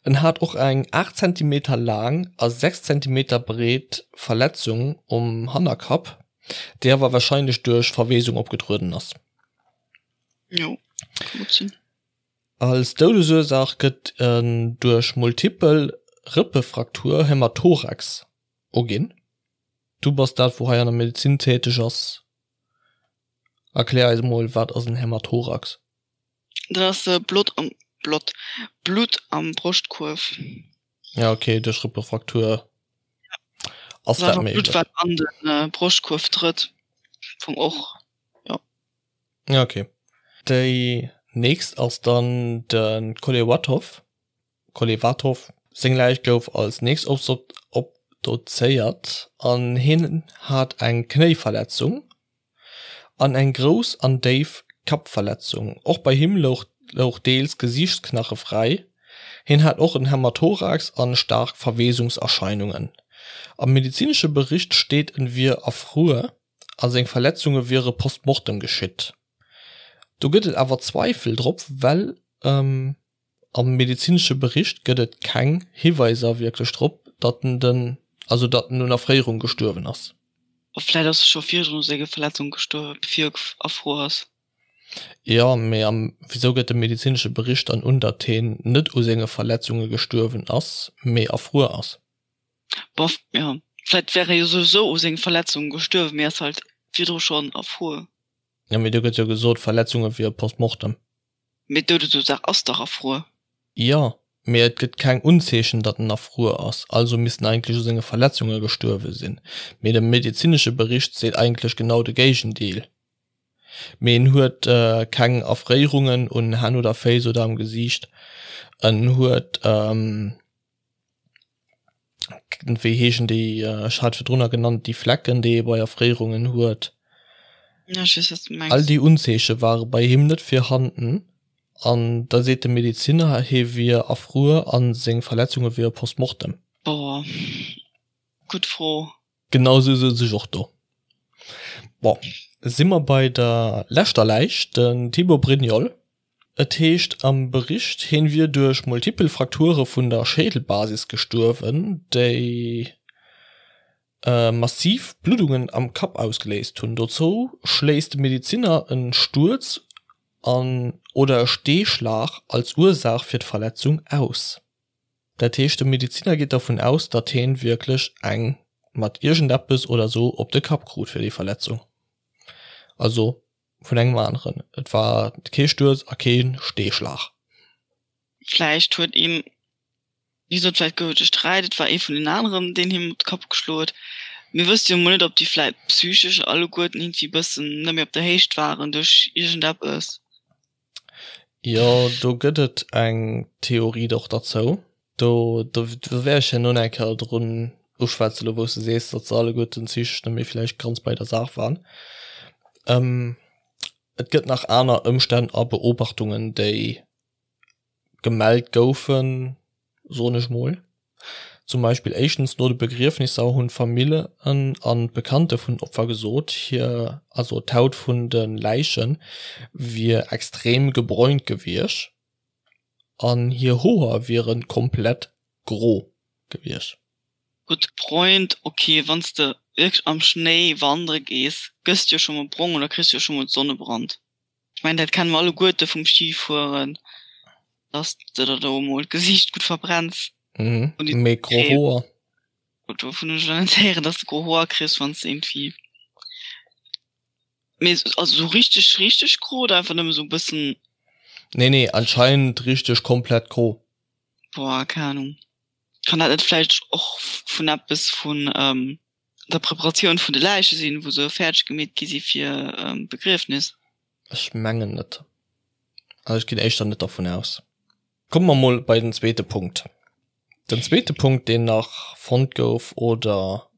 En hat och eng 8 Zentimeter laang a 6 Zentimeter breet Verletzung um Hannerkapp, déi awer warscheinlech duerch Verweesung opgetrueden ass. Jo, ka gutt sinn. Als Doudesursaach gëtt en duerch multipel Rëppefraktur, Hämathorax, uginn. Du bass dat wou hei an der Medezin täteg ass, erklär eis mol wat ass en Hämathorax? Dat ass Blott am Blott Blutt am Broschtkuerf. Ja ok, duerch Rëppefraktur ass dat méiglech. Blutt wat an de Broschtkuerf trëtt, vum och jo. Ja ok. Déi nächst ass dann de Kolewatow, Kolevatov. Seng Läich gouf als nächst obdozéiert an hien hat eng Knéiverletzung an eng grouss an déif Kappverletzung. Och bei him louch louch deels Gesiichtsknache fräi. Hien hat och en Hämathorax an staark Verweesungserscheinungen. Am medezinesche Bericht steet en wier erfruer. A seng Verletzunge wiere post mortem geschitt. Do gëtt et awer Zweifel drop, well am medezinesche Bericht gëtt et keng Hiweiser wierklech drop, datt en den, also datt en un Erfréierung gestuerwen ass. Vläit ass e scho virdrun u senge Verletzunge gestuerwen, bevir e erfruer ass. Jo, mee am wisou gëtt de medezinesche Bericht dann un, datt heen net u senge Verletzunge gestuerwen ass, mee erfruer ass? Bof, jo, vläit wär e jo souwisou u senge Verletzunge gestuerwen, mee ass halt virdru schonn erfruer. Jo, mee do gëtt jo gesot, Verletzunge wier post mortem. Mee d'Doudesursaach ass dach erfruer. Jo, mee et gëtt keng Unzeechen, datt en erfruer ass, also misst en eigentlech u senge Verletzunge gestuerwe sinn. Mee de medezinesche Bericht seet eigentlech genau de Géigendeel. Mee en huet keng Erfréierungen un Hänn oder Féiss oder am Gesiicht. En huet, wéi heeschen déi, ech hat virdrunner genannt, déi Flecken, déi ee bei Erfréierungen huet. Ja, ech weess, wat s de mengs. All déi Unzeeche ware bei him net virhanden. An da seet de Medezinner, hie wier erfruer a seng Verletzunge wiere post mortem. Boah, gutt Fro. Genau sou souz ech och do. Bon, si mer bei der leschter Läich, den Thibaut Brignol. Et heescht am Bericht, hien wier duerch multipel Frakture vun der Schädelbasis gestuerwen, déi massiv Bluddungen am Kapp ausgeléist hunn. Dozou schléisst de Medezinner en Stuerz an oder e Steeschlag als Ursaach fir d'Verletzung aus. Dat heescht de Mediziner geet dervun aus, datt heen wierklech eng mat iergendeppes oder sou op de Kapp krut fir déi Verletzung. Also vun engem aneren. Et war kee Stuerz a kee Steeschlag. Vläicht huet een, wéi gesot, vläicht gouf et e Sträit, et war ee vun den aneren, deen him op de Kapp geschloen huet. Mir wësse jo mol net, ob déi vläicht psychesch alleguerten iergendwéi e bëssen net méi op der Héicht waren duerch iergendeppes. Jo, do gëtt et eng Theorie och derzou. Do do wäert ech herno nach eng Kéier drun uschwätzen, elo wou s de sees, datt se alleguerten psychesch net méi vläicht ganz bei der Saach waren. Et gëtt nach aner Ëmstänn a Beobachtungen, déi gemellt goufen, soen ech mol. Zum Beispill éischtens no de Begriefnisser hunn d'Famillen an d'Bekannte vun den Opfer gesot, hir, also d'Haut vun de Läiche wier extrem gebräunt gewiescht an hir Hoer wiere komplett gro gewiescht. Gutt gebräunt, ok, wann s de wierklech am Schnéi wandere gees, gëss de jo scho mol brong oder kriss jo scho mol Sonnebrand. Ech mengen dat kenne mer alleguerte vum Skifueren, dass de der do emol d'Gesiicht gutt verbrenns. Mhm, mee gro Hoer? Gutt, dovun hunn ech elo net héieren, dass de gro Hoer kriss, wann s de iergendwéi, mee also sou richteg richteg gro oder einfach nëmme sou e bëssen? Nee, nee, anscheinend richteg komplett gro. Boah, keng Ahnung. Kann dat net vläicht och vun eppes vun der Preparatioun vun de Läiche sinn, wou se fäerdeg gemeet gi si fir d'Begriefnis? Ech mengen net. Also ech ginn éischter net dervun aus. Komme mer mol bei den zweete Punkt. Den zweete Punkt, deen nach fonnt gouf oder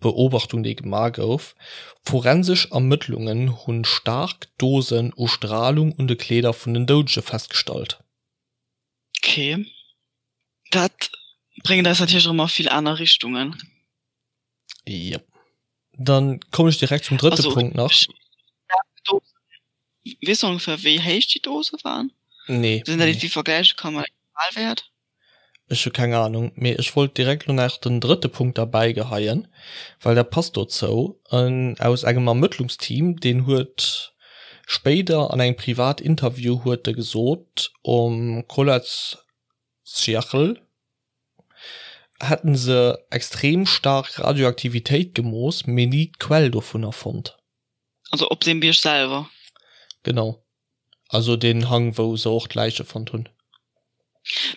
Beobachtung, déi gemaach gouf, Forensesch Ermëttlungen hu staark Dosen u Stralung un de Kleeder vun den Doudege festgestallt. Ok, dat bréngt eis natierlech erëm a vill aner Richtungen. Jep. Dann kommen ech direkt zum drëtte Punkt nach. Weess de ongeféier wéi héich déi Dose waren? Nee. Sinn dat iergendwéi vergläiche ka mat engem Normalwäert? Ech hu keng Ahnung, mee ech wollt direkt lo nach den drëtte Punkt derbäi geheien, well dat passt dozou. En aus engem Ermëttlungsteam, deen huet spéider an engem Privatinterview huet e gesot, um Kholat Syakhl hätten se extrem staark Radioaktivitéit gemooss, mee ni d'Quell dovunner fonnt. Also op deem Bierg selwer? Genau. Also deen Hang wou se och d'Läiche fonnt hunn.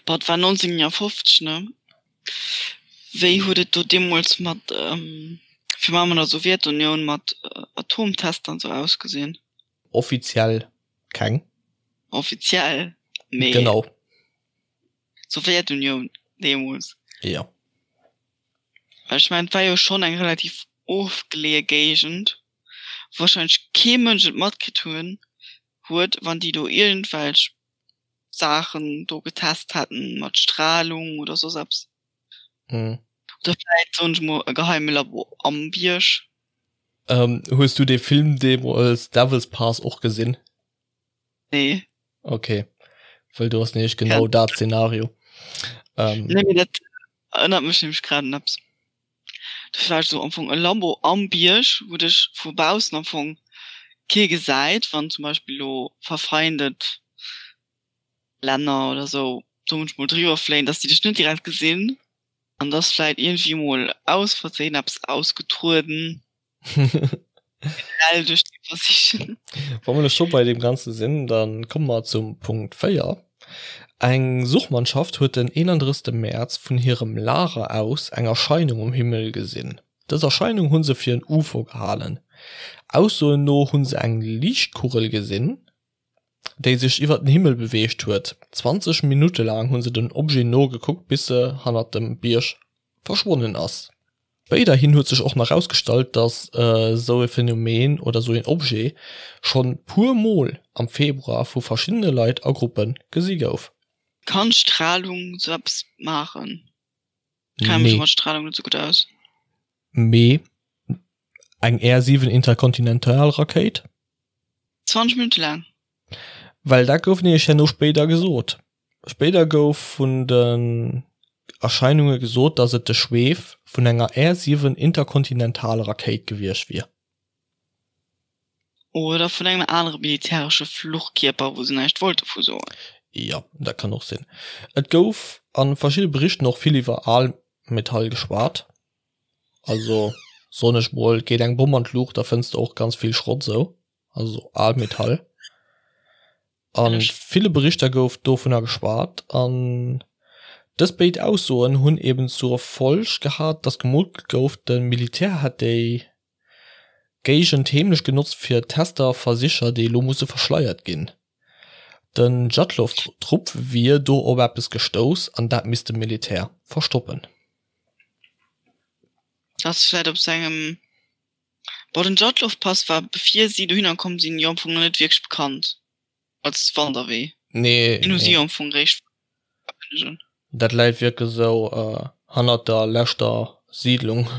Boah, et war 1950, ne? Wéi huet et do deemools mat, virun allem an der Sowjetunioun, mat Atomtester an sou ausgesinn? Offiziell keng. Offiziell, mee. Genau. Sowjetunioun deemools. Jo. Well ech mengen, et war jo schonn eng relativ ofgeleeë Géigend, wou warscheinlech kee Mënsch et matkritt hunn, huet, wann déi do iergendwelch Saachen do getest hätten mat Strahlung oder soss eppes. Mhm. Oder vläit, soen ech mol, e geheime Labo am Bierg. Hues du dee Film deemools Devil's Pass och gesinn? Nee. Okay, well do ass nämlech genau dat Szenario. Ähm, nee, mee dat erënnert mech nämlech grad un eppes. Dat war sou am Fong e Labo am Bierg, wou dech vu baussen am Fong kee gesäit, wann zum Beispill elo verfeindet Länner oder sou do munchmol driwwer fléien, dass déi dech net direkt gesinn. An dass vläit iergendwéi mol aus Versehen eppes ausgetrueden. Generell duerch déi Versichen. Wa mer elo scho bei deem Ganze sinn, da komme mer zum Punkt 4. Eng Suchmannschaft huet den 31. Mäerz vun hirem Lager aus eng Erscheinung um Himmel gesinn. Dës Erscheinung hu se fir en UFO gehalen. Aussoen no hu se eng Liichtkugel gesinn, déi sech iwwer den Himmel beweegt huet. 20 Minutte laang hu se dem Objet nogekuckt, bis se hannert dem Bierg verschwonnen ass. Spéiderhin huet sech och nach rausgestallt, dass esou e Phänomen oder esou een Objet schonn puer mol am Februar vu verschiddene Leit a Gruppe gesi gouf. Kann Strahlung sou eppes maachen? Ech kenne mech mat Strahlung net sou gutt aus. Mee eng Air 7 Interkontinentalrakéit? 20 Minutte laang. Well dat gouf nämlech herno spéider gesot. Spéider gouf vun den Erscheinunge gesot, datt et de Schweef vun enger Air 7 Interkontinentalrakéit gewiescht wier. Oder vun engem anere militäresche Fluchkierper, wou se näischt wollte vu soen. Jo, dat kann och sinn. Et gouf a verschidde Berichten och vill iwwer Almetall geschwat. Also soen ech mol, geet eng Bomm an d'Luucht, da fënns de och ganz vill Schrott sou, also Almetall. A ville Berichter gouf dovunner geschwat an dës béid Aussoen hunn eben zur Folg gehat, datt gemunkelt gouf, de Militär hätt déi Géigend heemlech genotzt fir Tester a Versicher, déi elo musse verschleiert ginn. Den Djatlov-Trupp wier do op eppes gestouss an dat misst de Militär verstoppen. Ass vläit op sengem Bon, den Djatlov-Pass war bevir si dohinner komm sinn jo am Fong nach net wierklech bekannt als Wanderwee. Nee, Den hu si jo am Fong réischt. Dat läit wierklech esou hannert der leschter Siidlung.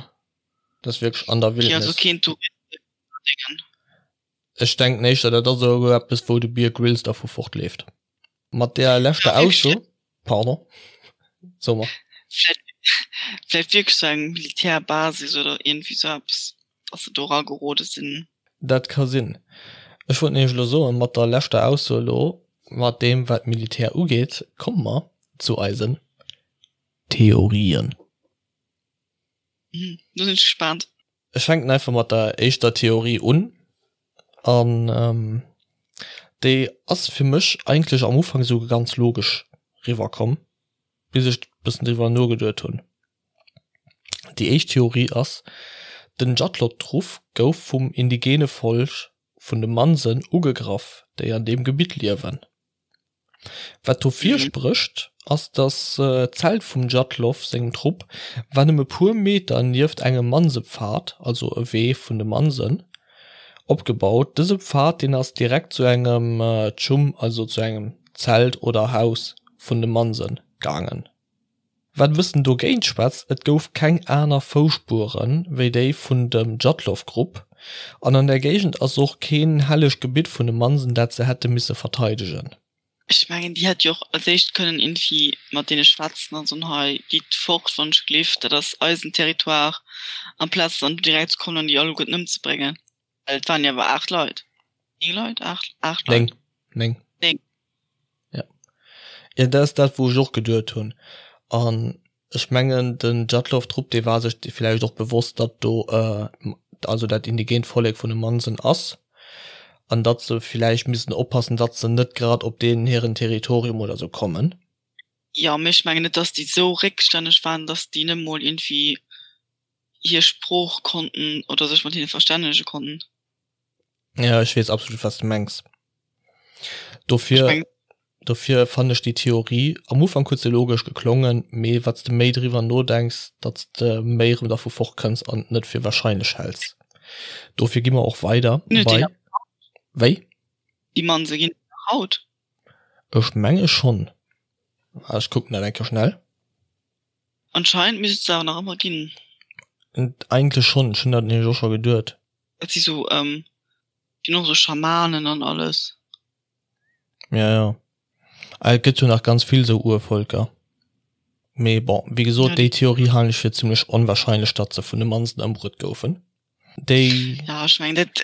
Dat ass wierklech an der Wildnis. Okay, also keen Touristendingen. Ech denken éischter, dat ass esou eppes, wou de Bear Grylls dervu fortleeft. Mat där leschter Ausso, pardon, so mer. Vläicht wierklech sou eng Militärbasis oder iergendwéi sou eppes, dass se do eragerode sinn. Dat ka sinn. Ech wollt nämlech elo soen, mat der leschter Ausso elo, mat deem wat d'Militär ugeet, komme mer zu eisen Theorien. Do sinn ech gespaant. Ech fänken einfach mat der éischter Theorie un an déi ass fir mech eigentlech am Ufank esou ganz logesch riwwer komm, bis ech bëssen driwwer nogeduet hunn. Déi éischt Theorie ass, den Djatlot-Truff gouf vum indigene Volk vun de Mansen ugegraff, déi an deem Gebitt liewen. Wat dofir sprécht, ass datt d'Zelt vum Djatlov sengem Trupp war nëmme puer Meter nieft engem Mansepfad, also e Wee vun de Mansen, opgebaut. Dëse Pfad deen ass direkt zu engem Tschum, also zu engem Zelt oder Haus vun de Mansen gaangen. Wat e bëssen dogéint schwätzt, et gouf keng aner Fousspure wéi déi vun dem Djatlov-Grupp, an an der Géigend ass och keen hellegt Gebitt vun de Mansen, dat se hätte misse verteidegen. Ech mengen, déi hätt jo och als éischt kënnen iergendwéi mat deene schwätzen an soen, hei, gitt fort, wann ech gleef, dat ass eisen Territoire, amplaz dann do direkt ze kommen an déi alleguerten ëmzebréngen. Well et waren jo awer 8 Leit. 9 Leit? 8, 8 Leit. 9, 9. 9. Ja. Ja, dat ass dat, wou ech och geduet hunn. An ech mengen, den Djatlov-Trupp, dee war sech villäicht och bewosst, datt do, also dat indigent Vollek vun de Mansen ass an datt se villäicht missten oppassen, datt se net grad op deenen hiren Territorium oder sou kommen. Jo, mee ech mengen net, datt déi sou réckstänneg waren, datt déi net mol iergendwéi hir Sprooch konnten oder sech mat hinne verstännege konnten. Ja, ech weess absolut, wat s de mengs. Dofir, dofir fannen ech déi Theorie, am Ufank huet se logesch geklongen, mee wat s de méi driwwer nodenks, datt s de méi erëm dervu fortkënns an et net fir wahrscheinlech häls. Dofir gi mer och weider bei. Wéi? Déi Manse ginn et nach haut? Ech menge schonn. Ech kucken dat eng Kéier schnell. Anscheinend misst et se awer nach ëmmer ginn. Eigentlech schonn, ech hunn dat nämlech och scho geduet. Dat si sou, déi hunn och sou Schamanen an alles. Ja, ja. Ah, et gëtt jo nach ganz vill sou Urvölker. Mee bon, wéi gesot, déi Theorie halen ech fir zimlech onwahrscheinlech, datt se vun de Mansen ëmbruet goufen. Déi. Ja, ech mengen dat,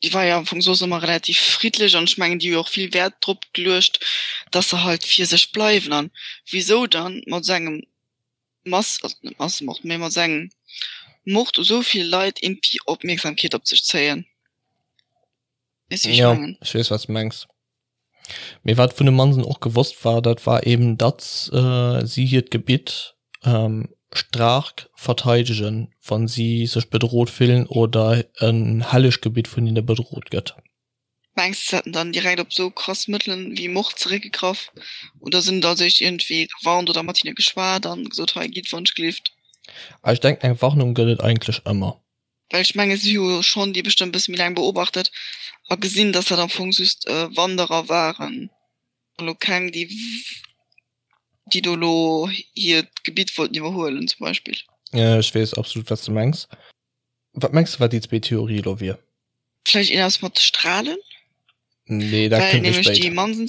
déi war jo am Fong soss ëmmer relativ friddlech an ech mengen, déi hu jo och vill Wäert drop geluecht, datt se halt fir sech bleiwen. An wisou dann mat esou engem Mass, also net Massemord, mee mat esou engem Mord u sou vill Leit iergendwéi Opmierksamkeet op sech zéien? Weess du, wéi ech Ja, mengen? ech weess, wat s de mengs. Mee wat vun de Mansen och gewosst war, dat war eben, datt si hiert Gebitt staark verteidegen, wa si sech bedrot fillen oder en helleg Gebitt vun hinne bedrot gëtt. Mengs de, se hätten dann direkt op esou krass Mëttelen wéi Mord zeréckgegraff? Oder sinn da sech iergendwéi gewarnt oder mat hinne geschwat an gesot, hei gitt wonschgelift? Ech denken, eng Warnung gëtt et eigentlech ëmmer. Well ech menge si hu jo schonn déi bestëmmt e bësse méi laang beobachtet a gesinn, datt dat am Fong just Wanderer waren an elo keng, déi déi do elo hiert Gebitt wollten iwwerhuelen zum Beispill. Jo, ech weess absolut, wat s de mengs. Wat mengs de, wat déi zweet Theorie elo wier? Vläicht iergendwas mat de Strahlen? Nee, dat Well kënnt méi nämlech déi spéit. Mansen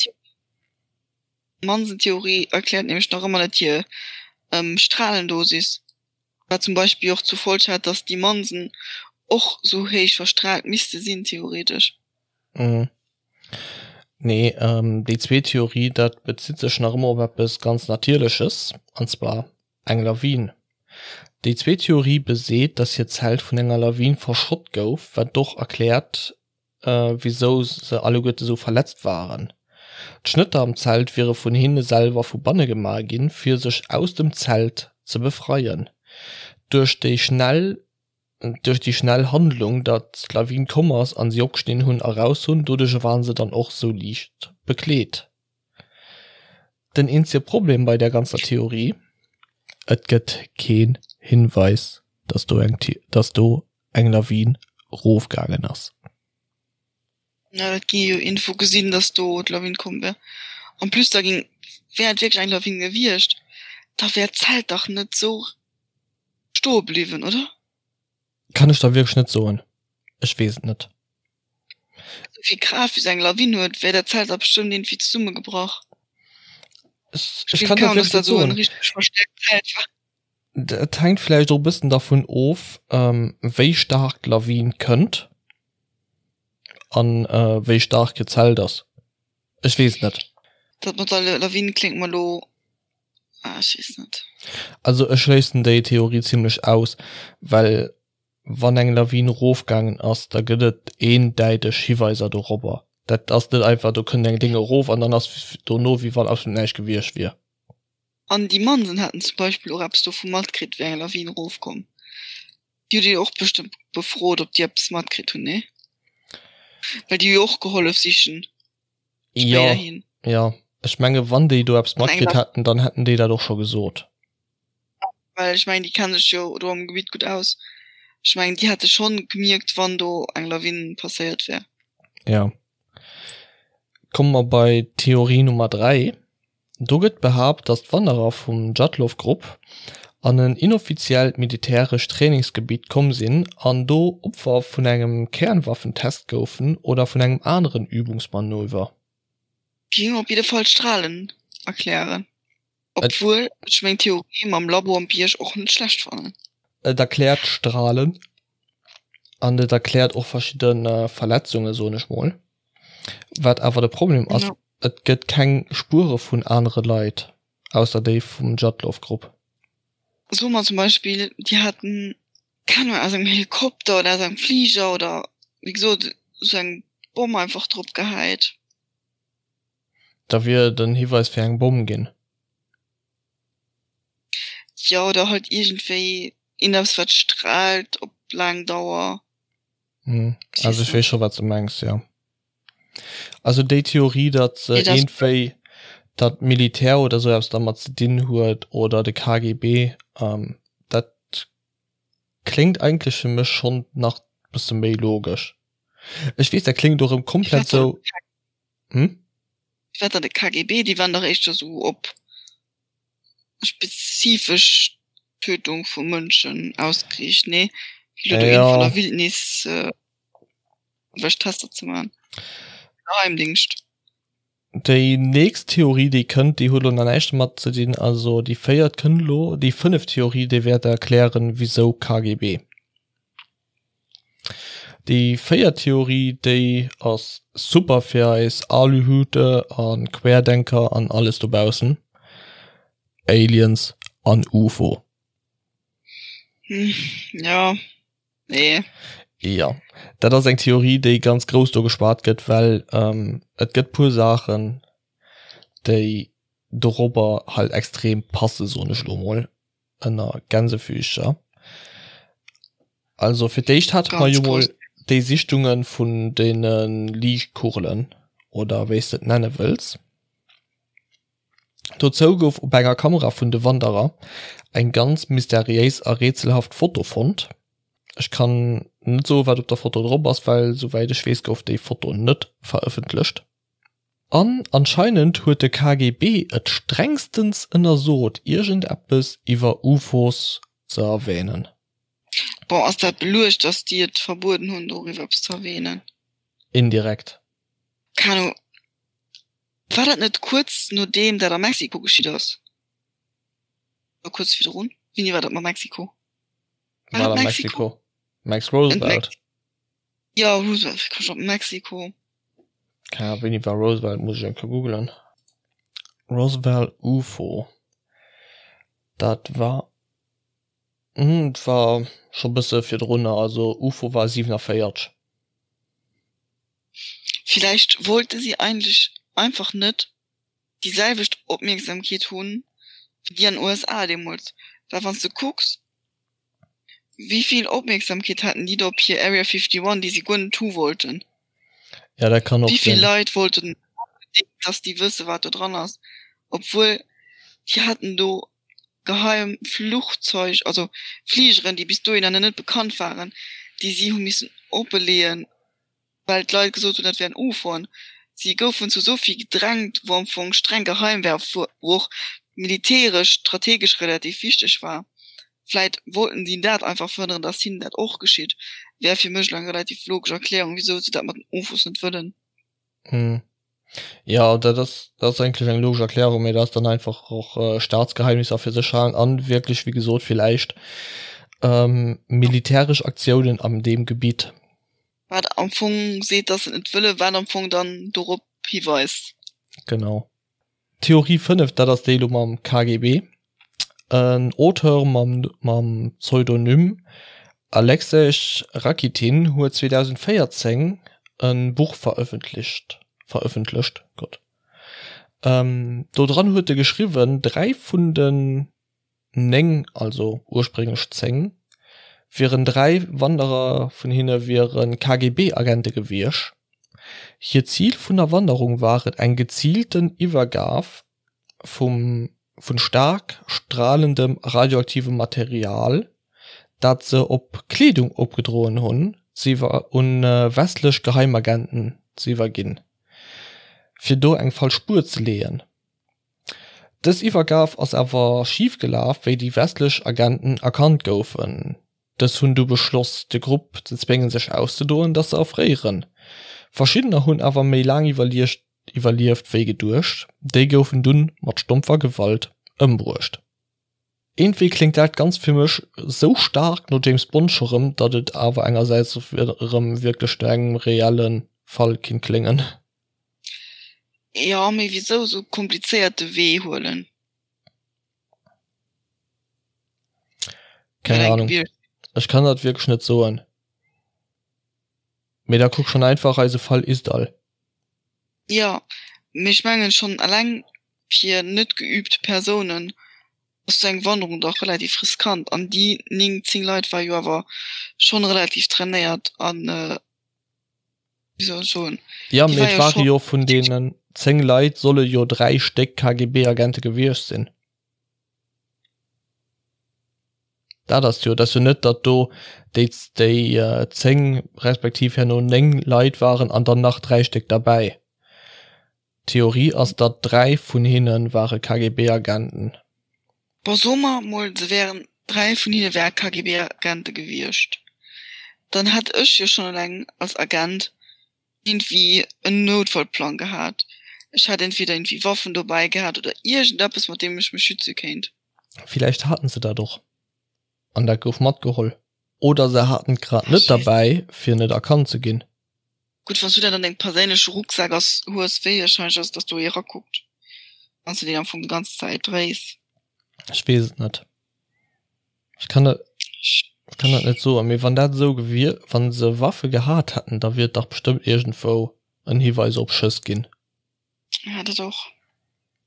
Mansen-Theorie erkläert nämlech nach ëmmer net hir Strahlendosis. Wat zum Beispill och zur Folg hat, dass déi Mansen och sou héich verstrahlt misste sinn, theoretesch. Mhm. Nee, déi zweet Theorie, dat bezitt sech nach ëmmer op eppes ganz Natierleches, an zwar eng Lawin. Déi zweet Theorie beseet, dass hiert Zelt vun enger Lawin verschott gouf, wat och erkläert, wisou se alleguerte sou verletzt waren. D'Schnëtter am Zelt wiere vun hinne selwer vu banne gemaach ginn, fir sech aus dem Zelt ze befreien. Duerch déi schnell duerch déi schnell Handlung, datt d'Lawin komm ass an si opgeschnidden hunn a raus hunn, doduerch waren se dann och sou liicht bekleet. Den eenzege Problem bei där ganzer Theorie, Et gëtt keen Hinweis, datt do eng datt do eng Lawin rofgaangen ass. Ja, dat gi jo Info gesinn, dass do d'Lawin komm wär. En plus da ging, wär et wierklech eng Lawin gewiescht, da wär d'Zelt dach net sou stoe bliwwen, oder? Kann ech der wierklech net soen, ech weess et net. Esou vill Kraaft wéi sou eng Lawin huet, wär dat Zelt da bestëmmt iergendwéi zesummegebrach. Ech, ech kann der wierklech net soen. Et hänkt vläicht och e bëssen dervun of, wéi staark d'Lawin kënnt an wéi staark hiert Zelt ass. Ech weess et net. Dat mat der Lawin kléngt mer elo, ah ech weess net. Also ech schléissen déi Theorie zimlech aus, well wann eng Lawin erofgaangen ass, da gëtt et eendäiteg Hiweiser dorobber. Dat ass net einfach, do kënnt eng Déng erof an dann ass dono wéi wann absolut näischt gewiescht wier. An déi Mansen haten zum Beispill och eppes dovu matkritt, wéi eng Lawin erofkomm. Déi hutt Dir jo och bestëmmt befrot, ob déi eppes matkritt hunn, nee? Well déi hu jo och gehollef sichen spéiderhin. Jo, jo. Ech menge wann déi do eppes matkritt hätten, dann hätten déi dat och scho gesot. Well ech mengen, déi kenne sech jo do am Gebitt gutt aus. Ech mengen, déi hätte schonn gemierkt, wann do eng Lawin passéiert wär. Jo. Komme mer bei Theorie Nummer 3. Do gëtt behaapt, datt d'Wanderer vum Djatlov-Grupp an en inoffiziellt militärescht Trainingsgebitt komm sinn an do Opfer vun engem Kernwaffentest goufen oder vun engem aneren Übungsmanöver. Géing op jidde Fall d'Strahlen erklären, obwuel ech meng Theorie mam Labo am Bierg och net schlecht fannen. Et erkläert d'Strahlen an et erkläert och verschidde Verletzungen, soen ech mol. Wat awer de Problem ass, Et gëtt keng Spuere vun anere Leit, ausser déi vum Djatlov-Grupp. Soe mer zum Beispill, déi haten, keng Ahnung, aus engem Helikopter oder aus engem Fliger oder wéi gesot esou eng Bomm einfach drop gehäit. Da wier et en Hiweis fir eng Bomm ginn. Jo, oder halt iergendwéi iergendeppes wat straalt op laang Dauer. Also ech weess scho wat s de mengs, jo. Also déi Theorie, datt se iergendwéi, datt d'Militär oder esou eppes dermat ze dinn huet oder de KGB, dat kléngt eigentlech fir mech schonn nach bësse méi logesch. Ech weess, dat kléngt och erëm komplett esou, hm? Wat dann de KGB? Déi waren dach éischter esou op spezifesch Tötung vu Mënschen ausgeriicht, nee? Wéi elo do een vun der Wildnis wech Tester ze maachen. Geheimdingscht. Déi nächst Theorie déi kënnt, déi huet elo nach näischt domat ze dinn, also déi véiert kënnt elo, déi fënneft Theorie déi wäert erklären wisou KGB. Déi véiert Theorie déi ass super fir eis Aluhute a Querdenker an alles dobaussen, Aliens an UFO. Jo, nee. Jo, dat ass eng Theorie, déi ganz grouss do geschwat gëtt, well et gëtt puer Saachen, déi dorobber halt extrem passe soen ech elo mol ënner Gänsefüßcher. Also fir d'éischt hate mer jo mol déi Sichtunge vun deene Liichtkugelen oder wéi s de et nenne wëlls. Dozou gouf op enger Kamera vun de Wanderer eng ganz mysteriéis a rätselhaft Foto fonnt. Ech kann net soen, wat op der Foto drop ass, well souwäit ech weess gouf déi Foto net verëffentlecht. An anscheinend huet de KGB et strengstens ënnersot iergendeppes iwwer UFOs ze erwähnen. Bon, ass dat beluecht, dass déi et verbueden hunn doriwwer eppes ze erwähnen? Indirekt. Keen Ahnung. War dat net kuerz nodeem dat a Mexiko geschitt ass? Oder kuerz virdrun? Wéini war dat mat Mexiko? War dat Mexiko? Max Roosevelt. Jo, Roosevelt, wéi koum ech op Mexiko? Keng Ahnung, wéini war Roosevelt, muss ech eng Kéier googelen. Roswell UFO, dat war, et war scho bësse virdrunner, also UFO war 47. Villäicht wollte si eigentlech einfach net déi selwecht Opmierksamkeet hunn wéi déi an USA deemools, well wann s de kucks wéi vill Opmierksamkeet haten déi do op hir Area 51, déi si guer net hu wollten. Ja, dat kann och Wéi vill sinn. Leit wollten onbedéngt, dass déi wësse wat do dran ass, obwuel déi haten do geheim Fluchzeug, also Fligeren, déi bis dohinner net bekannt waren, déi si hu missen oppeleeën, well d'Leit gesot hunn, dat wären UFOen. Si goufen zu esou vill gedrängt, wou am Fong streng geheim war, wou och militäresch, strategesch relativ wichteg war. Vläit wollten si dat einfach verhënneren, datt hinnen dat och geschitt. Wär fir mech elo eng relativ logesch Erklärung, wisou se dat mat den UFOs net wëllen. Jo, dat ass, dat ass eigentlech eng logesch Erklärung, mee dat ass dann einfach och Staatsgeheimnisser fir sech halen an wierklech, wéi gesot, villäicht militäresch Aktiounen an deem Gebitt. Wat am Fong seet, dass se et net wëllen, wat am Fong dann dorop hiweist. Genau. Theorie 5, dat ass déi elo mam KGB. En Auteur mam mam Pseudonym Alexej Rakitin huet 2014 e Buch verëffentlicht verëffentlecht, Gott. Do dran huet e geschriwwen, 3 vun den 9, also ursprénglech 10, wieren 3 Wanderer vun hinne wiere KGB-Agente gewiescht. Hiert Zil vun der Wanderung war et eng geziilten Iwwergab vum vun staark stralendem radioaktivem Material, dat se op Kleedung opgedroen hunn, un westlech Geheimagenten ze iwwerginn, fir do eng falsch Spuer ze leeën. Dës Iwwergab ass awer schif gelaf, wéi déi westlech Agenten erkannt goufen. Dës hunn du beschloss, de Grupp ze zwéngen sech auszedoen, dass se erfréieren. Verschiddener hunn awer méi laang iwwerlieft wéi geduecht, déi goufen dunn mat stompfer Gewalt ëmbruecht. Iergendwéi kléngt dat Ganzt fir mech sou staark no James Bond scho rëm, datt et awer engersäits erëm wierklech no engem reelle Fall kinnt kléngen. Jo, mee wisou esou komplizéierte Wee huelen? Keng Ahnung. Ech kann dat wierklech net soen. Mee da kuck schon einfach eise Fall Isdall. Jo, mee ech mengen schon eleng fir net geübt Persounen ass sou eng Wanderung dach relativ riskant an déi 9, 10 Leit war jo awer schon relativ trainéiert an wéi soll ech soen, Ja, mee et ware jo vun deenen 10 Leit solle jo 3 Stéck KGB-Agente gewiescht sinn. Dat ass jo, dat ass jo net, datt do déi déi 10 respektiv herno 9 Leit waren an dann nach 3 Stéck derbäi. D'Theorie ass, datt 3 vun hinne ware KGB-Agenten. Bon, soe mer mol, se wären, 3 vun hinne wäre KGB-Agente gewiescht. Dann hätt ech jo schonn eleng als Agent iergendwéi en Noutfallplang gehat. Ech hätt entweder iergendwéi Waffen dobäi gehat oder iergendeppes, mat deem ech mech schütze kéint. Villäicht haten se dat och an dat gouf matgeholl. Oder se haten et grad net derbäi, fir net erkannt ze ginn. Gutt, wann s du dat an dengem perséinleche Rucksak ass hues, wéi warscheinlech ass et, dass do ee rakuckt, wann s du deen am Fong déi ganz Zäit dréis? Ech weess et net. Ech kann dat, ech kann dat net soen. Mee wann dat esou gewier, wann se Waffe gehat hätten, da wier et dach bestëmmt iergendwou en Hiweis op Schëss ginn. Ja, dat och.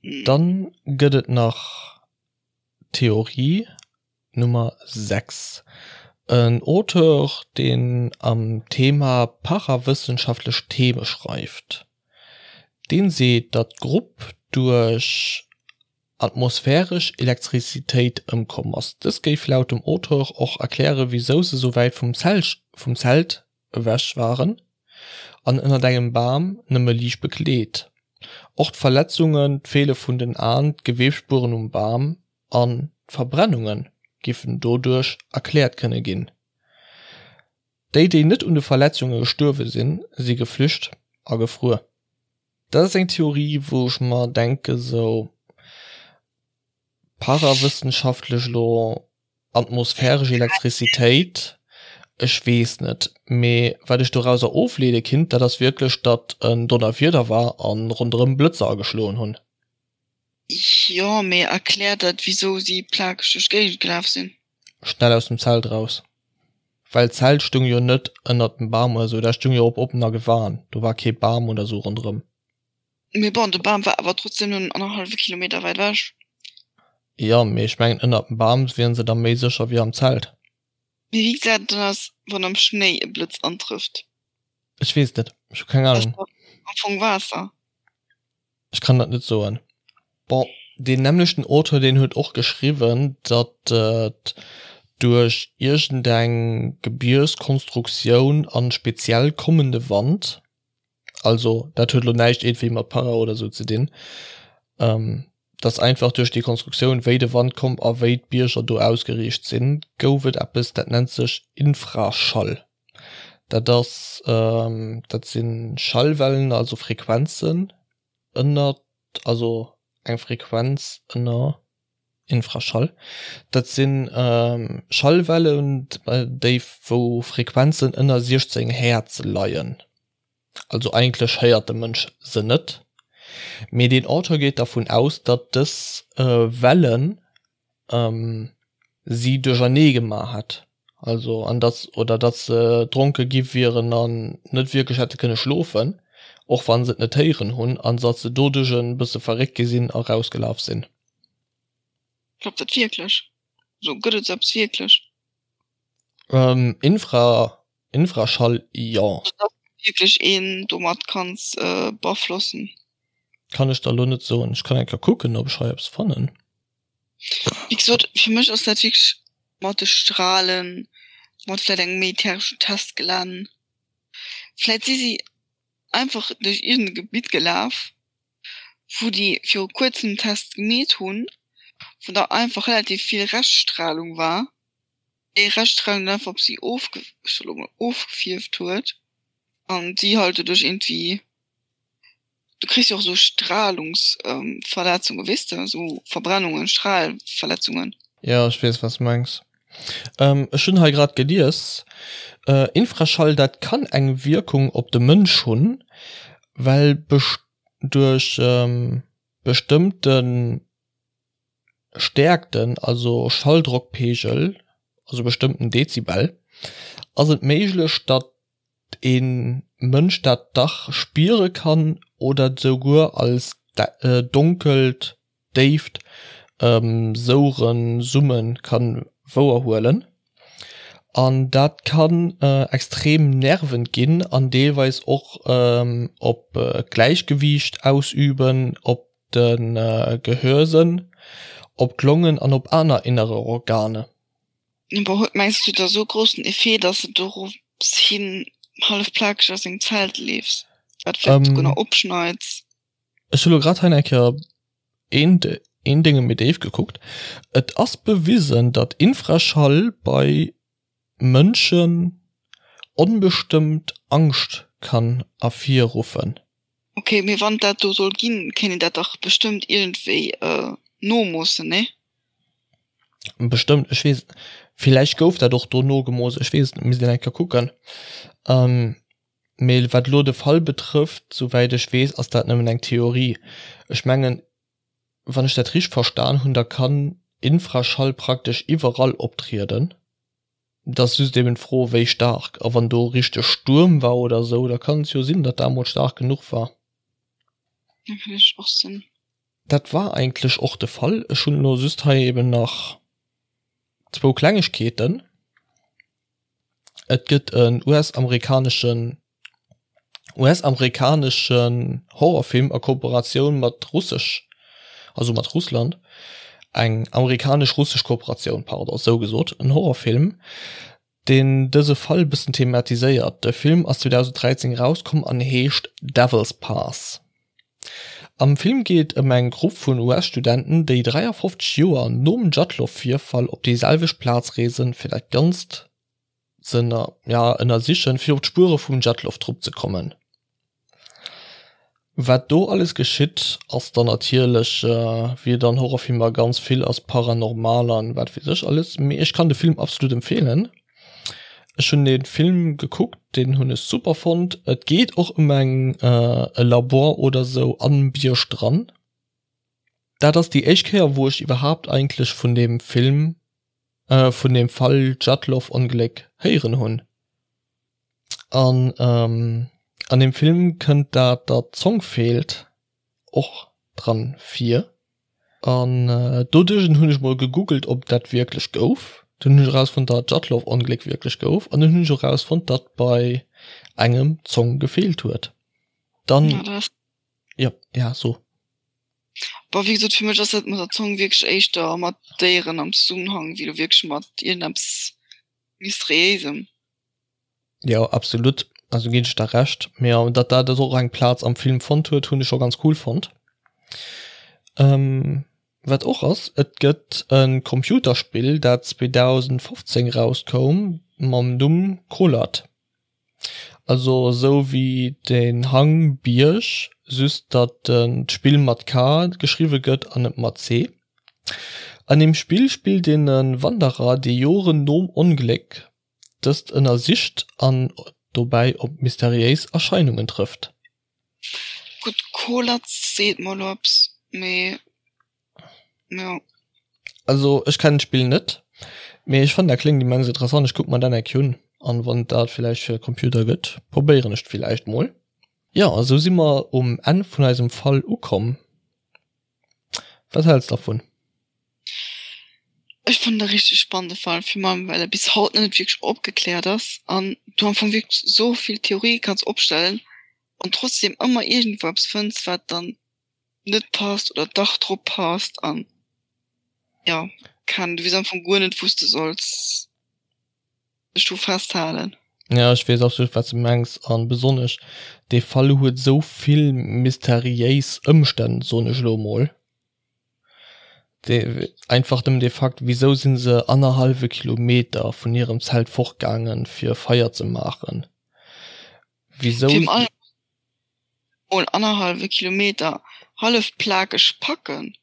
Dann gëtt et nach Theorie Nummer 6, en Auteur, deen am Thema parawëssenschaftlech Theme schreift, deen seet, datt d'Grupp duerch atmosphäresch Elektrizitéit ëmkomm ass. Dës géif laut dem Auteur och erkläre wisou se sou wäit vum Zelt ewech waren an ënnert engem Bam nëmme liicht bekleet. Och d'Verletzungen, d'Feele vun den Aen, d'Geweebsspueren um Bam an d'Verbrennunge giffen doduerch erkläert kënne ginn. Déi, déi net un de Verletzunge gestuerwe sinn, si geflücht a gefruer. Dat ass eng Theorie, wou ech mer denke sou parawëssenschaftlech elo, atmosphäresch Elektrizitéit, ech weess net. Mee wat ech dorauser ofleede kinnt, dat ass wierklech, datt en Donnerwieder war a ronderëm Blëtzer ageschloen hunn. Jo, mee erkläert dat wisou si plakeg duerch d'Géigend gelaf sinn? Schnell aus dem Zelt raus. Well d'Zelt stung jo net ënnert dem Bam oder sou, dat stung jo op oppener Gewan, do war kee Bam oder sou ronderëm. Mee bon, de Bam war awer trotzdem nëmmen annerhallwe Kilometer wäit ewech. Jo, mee ech mengen ënnert dem Bam wieren se da méi sécher wéi am Zelt. Mee wéi gesäit et dann aus, wann am Schnéi e Blëtz antrëfft? Ech weess et net, ech hu keng Ahnung. Dat ass dach am Fong Waasser. Ech kann dat net soen. Bon, deen nämmlechten Auteur, deen huet och geschriwwen, datt et duerch iergendeng Gebierskonstruktioun an speziell kommende Wand, also dat huet elo näischt iergendwéi mat Para oder sou ze dinn, datt einfach duerch déi Konstruktioun, wéi de Wand komm a wéi d'Bierger do ausgeriicht sinn, gouf et eppes, dat nennt sech Infraschall. Dat ass, dat si Schallwellen, also Frequenzen ënner, also eng Frequenz ënner Infraschall. Dat si Schallwellen, déi wou Frequenzen ënner 16 Häertz leien. Also eigentlech héiert de Mënsch se net, mee deen Auteur geet dervun aus, datt dës Wellen si duerchernee gemaach hätt, also an datt oder datt se dronke gi wieren an net wierklech hätte kënne schlofen, och wa se et net héieren hunn, an datt se doduerch e bësse verréckt gi sinn a rausgelaf sinn. Klappt dat wierklech? Also gëtt et sou eppes wierklech? Infra, Infraschall, jo. Also datt wierklech een domat kanns beaflossen? Kann ech der elo net soen. Ech kann eng Kéier kucken, ob ech hei eppes fannen. Wéi gesot, fir mech ass dat wierklech mat de Strahlen, mat vläit engem militäreschen Testgelänn. Vläit si si einfach duerch iergend e Gebitt gelaf, wou déi viru kuerzem Test gemeet hunn, wou da einfach relativ vill Reschtstrahlung war, déi Reschtstrahlung dann einfach op si ofge, ech soe lo mol, ofgefierft huet an si halt doduerch iergendwéi Du kriss jo och esou Strahlungsverletzungen, weess de, esou Verbrennungen, Strahlverletzungen. Jo, ech weess, wat s de mengs. Ech hunn hei grad gelies, Infraschall, dat kann eng Wierkung op de Mënsch hunn, well duerch bestëmmte Stäerkten, also Schalldrockpegel, also bestëmmten Dezibel, ass et méiglech, datt ee Mënsch dat dach spiere kann oder et souguer als donkelt, déift Soueren, Summen ka wouerhuelen. An dat kann extrem nervend ginn an deelweis och op d'Gläichgewiicht ausüben, op de Gehörsënn, op d'Longen an op aner innere Organe. Awer huet mengs du da sou groussen Effet, dass de dorops hin hallef plakeg aus dengem Zelt leefs, wat vläicht souguer nach opschneits? Ech hu lo grad hei eng Kéier een een Dénge méi déif gekuckt. Et ass bewisen, datt Infraschall bei Mënschen. onbestëmmt Angscht kann ervirruffen. Ok, mee wann dat do soll ginn, kéint een dat dach bestëmmt iergendwéi nomoossen, nee? Bestëmmt, ech weess, villäicht gouf dat och do nogemooss, ech weess et net, misst een eng Kéier kucken. Mee wat elo de Fall betrëfft, souwäit ech weess, ass dat nëmmen eng Theorie. Ech mengen, wann ech dat richteg verstan hunn, da kann Infraschall praktesch iwwerall optrieden. Et ass just eben d'Fro wéi staark, a wann do richteg Stuerm war oder esou, da kann et jo sinn, datt dat emol staark genuch war. Dat kann natierlech och sinn. Dat war eigentlech och de Fall. Ech hunn elo just hei eben nach zwou Klengegkeeten. Et gëtt en US-amerikaneschen US-amerikaneschen Horrorfilm a Kooperatioun mat russesch, also mat Russland, eng amerikanesch-russesch Kooperatioun, pardon, esou gesot, en Horrorfilm, deen dëse Fall e bëssen thematiséiert. De Film ass 2013 erauskomm an heescht Devil's Pass. Am Film geet et ëm eng Grupp vun US-Studenten, déi 53 Joer nom Djatlov-Virfall op déi selwecht Plaz reesen, fir dat Ganzt ze ënnersichen, fir op d'Spuere vum Djatlov-Trupp ze kommen. Wat do alles geschitt, ass dann natierlech, wéi et an Horrorfilmer ganz vill ass, paranormal an wat weess ech alles. Mee ech kann de Film absolut empfeelen. Ech hunn dee Film gekuckt, deen hunn ech super fonnt. Et geet och ëm eng e Labor oder sou am Bierg dran. Dat ass déi éischt Kéier, wou ech iwwerhaapt eigentlech vun deem Film vun dem Fall Djatlov-Ongléck héieren hunn. An an dem Film kënnt dat, datt d'Zong feelt, och dran vir. An doduerch hunn ech mol gegoogelt, ob dat wierklech gouf. Dunn hunn ech erausfonnt, datt d'Djatlov-Ongléck wierklech gouf. An dunn hunn ech och erausfonnt, datt bei engem d'Zong gefeelt huet. Dann, jo, ja, so. Bon, wéi gesot, fir mech ass dat mat der Zong wierklech éischter mat Déieren am Zesummenhang, wéi lo wierklech mat iergendeppes Mysteriéisem. Jo, absolut, also ginn ech der Recht. Mee datt dat och eng Plaz am Film fonnt huet, hunn ech scho ganz cool fonnt. Wat och ass, et gëtt e Computerspill, dat 2015 rauskoum mam Numm Kholat. Also esou wéi den Hang, Bierg, just datt d'Spill mat K geschriwwe gëtt an net mat C. An deem Spill spillt een e Wanderer, dee Joren nom Ongléck dëst ënnersicht an dobäi op mysteriéis Erscheinungen trëfft. Gutt, Kholat seet mer elo eppes, mee jo. Also ech kennen d'Spill net, mee ech fannen dat kléngt immens interessant. Ech kucken mer dat eng Kéier un an wann et dat villäicht fir Computer gëtt, probéieren ech villäicht mol. Jo, a sou si mer um Enn vun eisem Fall ukomm. Wat häls dervun? Ech fannen e richteg spannende Fall, virun allem well e bis haut nach net wierklech opgekläert ass an du am Fong wierklech esou vill Theorië kanns opstellen an trotzdem ëmmer iergendwou eppes fënns, wat dann net passt oder dach drop passt an jo kann du weess am Fong guer net wous de solls dech dru festhalen. Ja ech weess absolut wat s de mengs an besonnesch dee Fall huet esou vill mysteriéis Ëmstänn soen ech elo emol. Dee einfach nëmmen dee Fakt wisou sinn se annerhallwe Kilometer vun hirem Zelt fortgaangen fir Feier ze maachen? Wisou? Mol annerhallwe Kilometer hallef plakeg packen.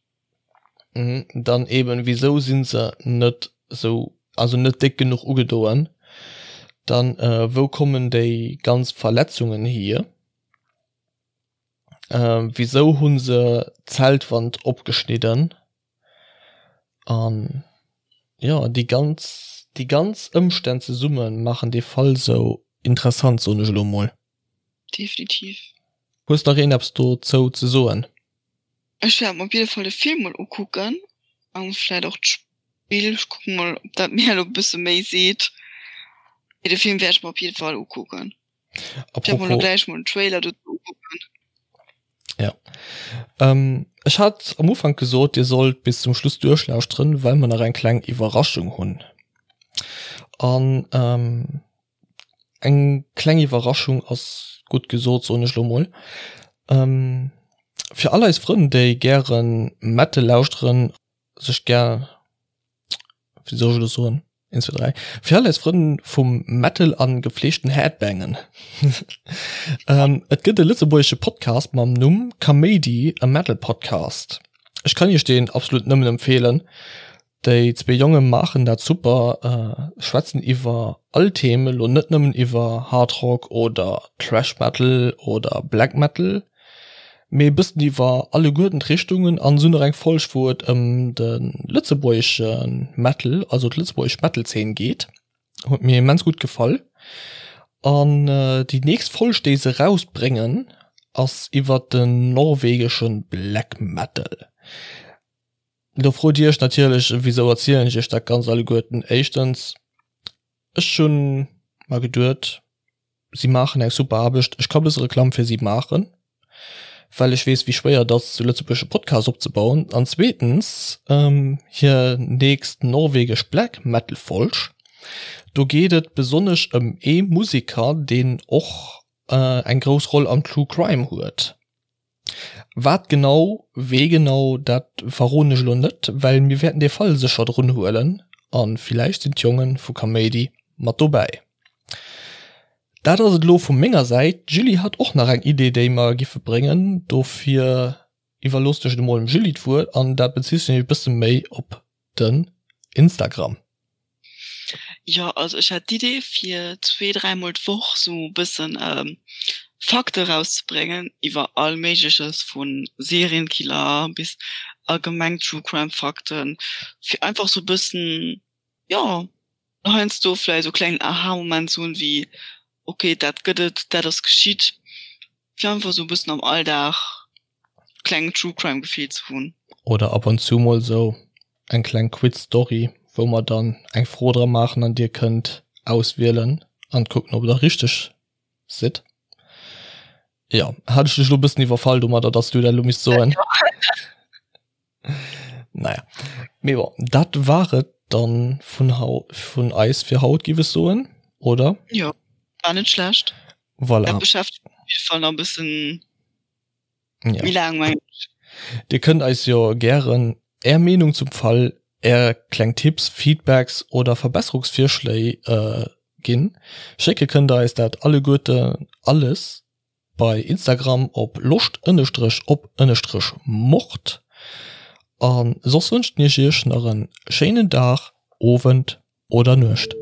Dann eben, wisou si se net sou, also net déck genuch ugedoen? Dann, wou kommen déi ganz Verletzungen hier? Wisou hu se d'Zeltwand opgeschnidden? An jo, déi ganz, déi ganz Ëmstänn zesumme maachen dee Fall sou interessant, soen ech elo mol. Definitiv. Hues nach een eppes dozou ze soen? Ech wäert mer op jidde Fall de Film mol ukucken an vläit och d'Spill. Ech kucken mol ob dat mir elo e bësse méi seet. Mee de Film wäert ech mer op jidde Fall ukucken. Ech wäert mer elo gläich mol den Trailer dozou ukucken. Ja. Ähm, ech hat am Ufank gesot, dir sollt bis zum Schluss duerchlauschteren, well mer nach eng kleng Iwwerraschung hunn. An ähm, Eng kleng Iwwerraschung ass gutt gesot, soen ech lo mol. Fir all eis Frënn, déi gäre Metal lauschteren, sech gär, wéi soll ech elo soen? 1, 2, 3. Fir all eis Frënn vum Metal an gepflegten Headbangen. ähm, et gëtt e lëtzebuergesche Podcast mam Numm Kaméidi, e Metal Podcast. Ech kann iech deen absolut nëmmen empfeelen. Déi zwee Jonge maachen dat super, äh, schwätzen iwwer all Themen, lo net nëmmen iwwer Hard Rock oder Thrash Metal oder Black Metal, mee e bëssen iwwer alleguerten d'Richtungen an esou nach eng Folg wou et ëm de lëtzebuergesche Metal, also d'lëtzebuergesch Metal-Zeen geet. Huet mir immens gutt gefall. An déi nächst Folg déi se rausbréngen ass iwwer den norwegesche Black Metal. Do frot dir iech natierlech, wisou erzielen ech iech dat Ganzt alleguerten? Éischtens, ech hunn mer geduet, si maachen eng super Aarbecht, ech ka bësse Reklamm fir si maachen, well ech weess wéi schwéier et ass zu Lëtzebuerg e Podcast opzebauen an zweetens hir nächst norwegesch Black Metal Folg, do geet et besonnesch ëm ee Museker deen och eng grouss Roll am True Crime huet. Wat genau, wee genau, dat verroden ech elo net, well mir wäerten dee Fall sécher drun huelen a villäicht sinn d'Jonge vu Kaméidi mat dobäi. Dat ass et elo vu menger Säit. D'Julie hat och nach eng Idee, déi mer giffe bréngen. Dofir iwwerloossen ech et emol dem Julie d'Wuert an dat bezitt sech e bësse méi op den Instagram. Jo, also ech hat d'Idee fir zwee, dräimol d'Woch sou e bëssen Fakte rauszebréngen iwwer all Méigleches, vu Serienkiller bis allgemeng True Crime Fakten, fir einfach sou e bëssen, jo, heiansdo vläicht sou e klengen Aha-Moment ze hunn, wéi ok, dat gëtt et, dat ass geschitt, fir einfach sou e bëssen am Alldag klengen True Crime Gefill ze hunn. Oder ab und zu mol sou eng kleng Quiz Story wou mer dann eng Fro dra maachen an dir kënnt auswielen an kucken ob der richteg sidd. Jo, hat ech dech lo bëssen iwwerfall domadder dass du dat lo misst soen. Naja, mee bon, dat war et dann vun hau vun eis fir haut giff ech soen, oder? Jo, war net schlecht. Voilà. Dat beschäftegt mech op jidde Fall nach e bëssen Ja. méi laang, mengen ech. Dir kënnt eis jo gären Är Meenung zum Fall, Är kleng Tipps, Feedbacks oder Verbesserungsvirschléi ginn. Schécke kënnt der eis dat alleguerte alles bei Instagram op loscht ënnestrech op ënnestrech mord. A soss wënschen ech iech nach en schéinen Dag, Owend oder Nuecht.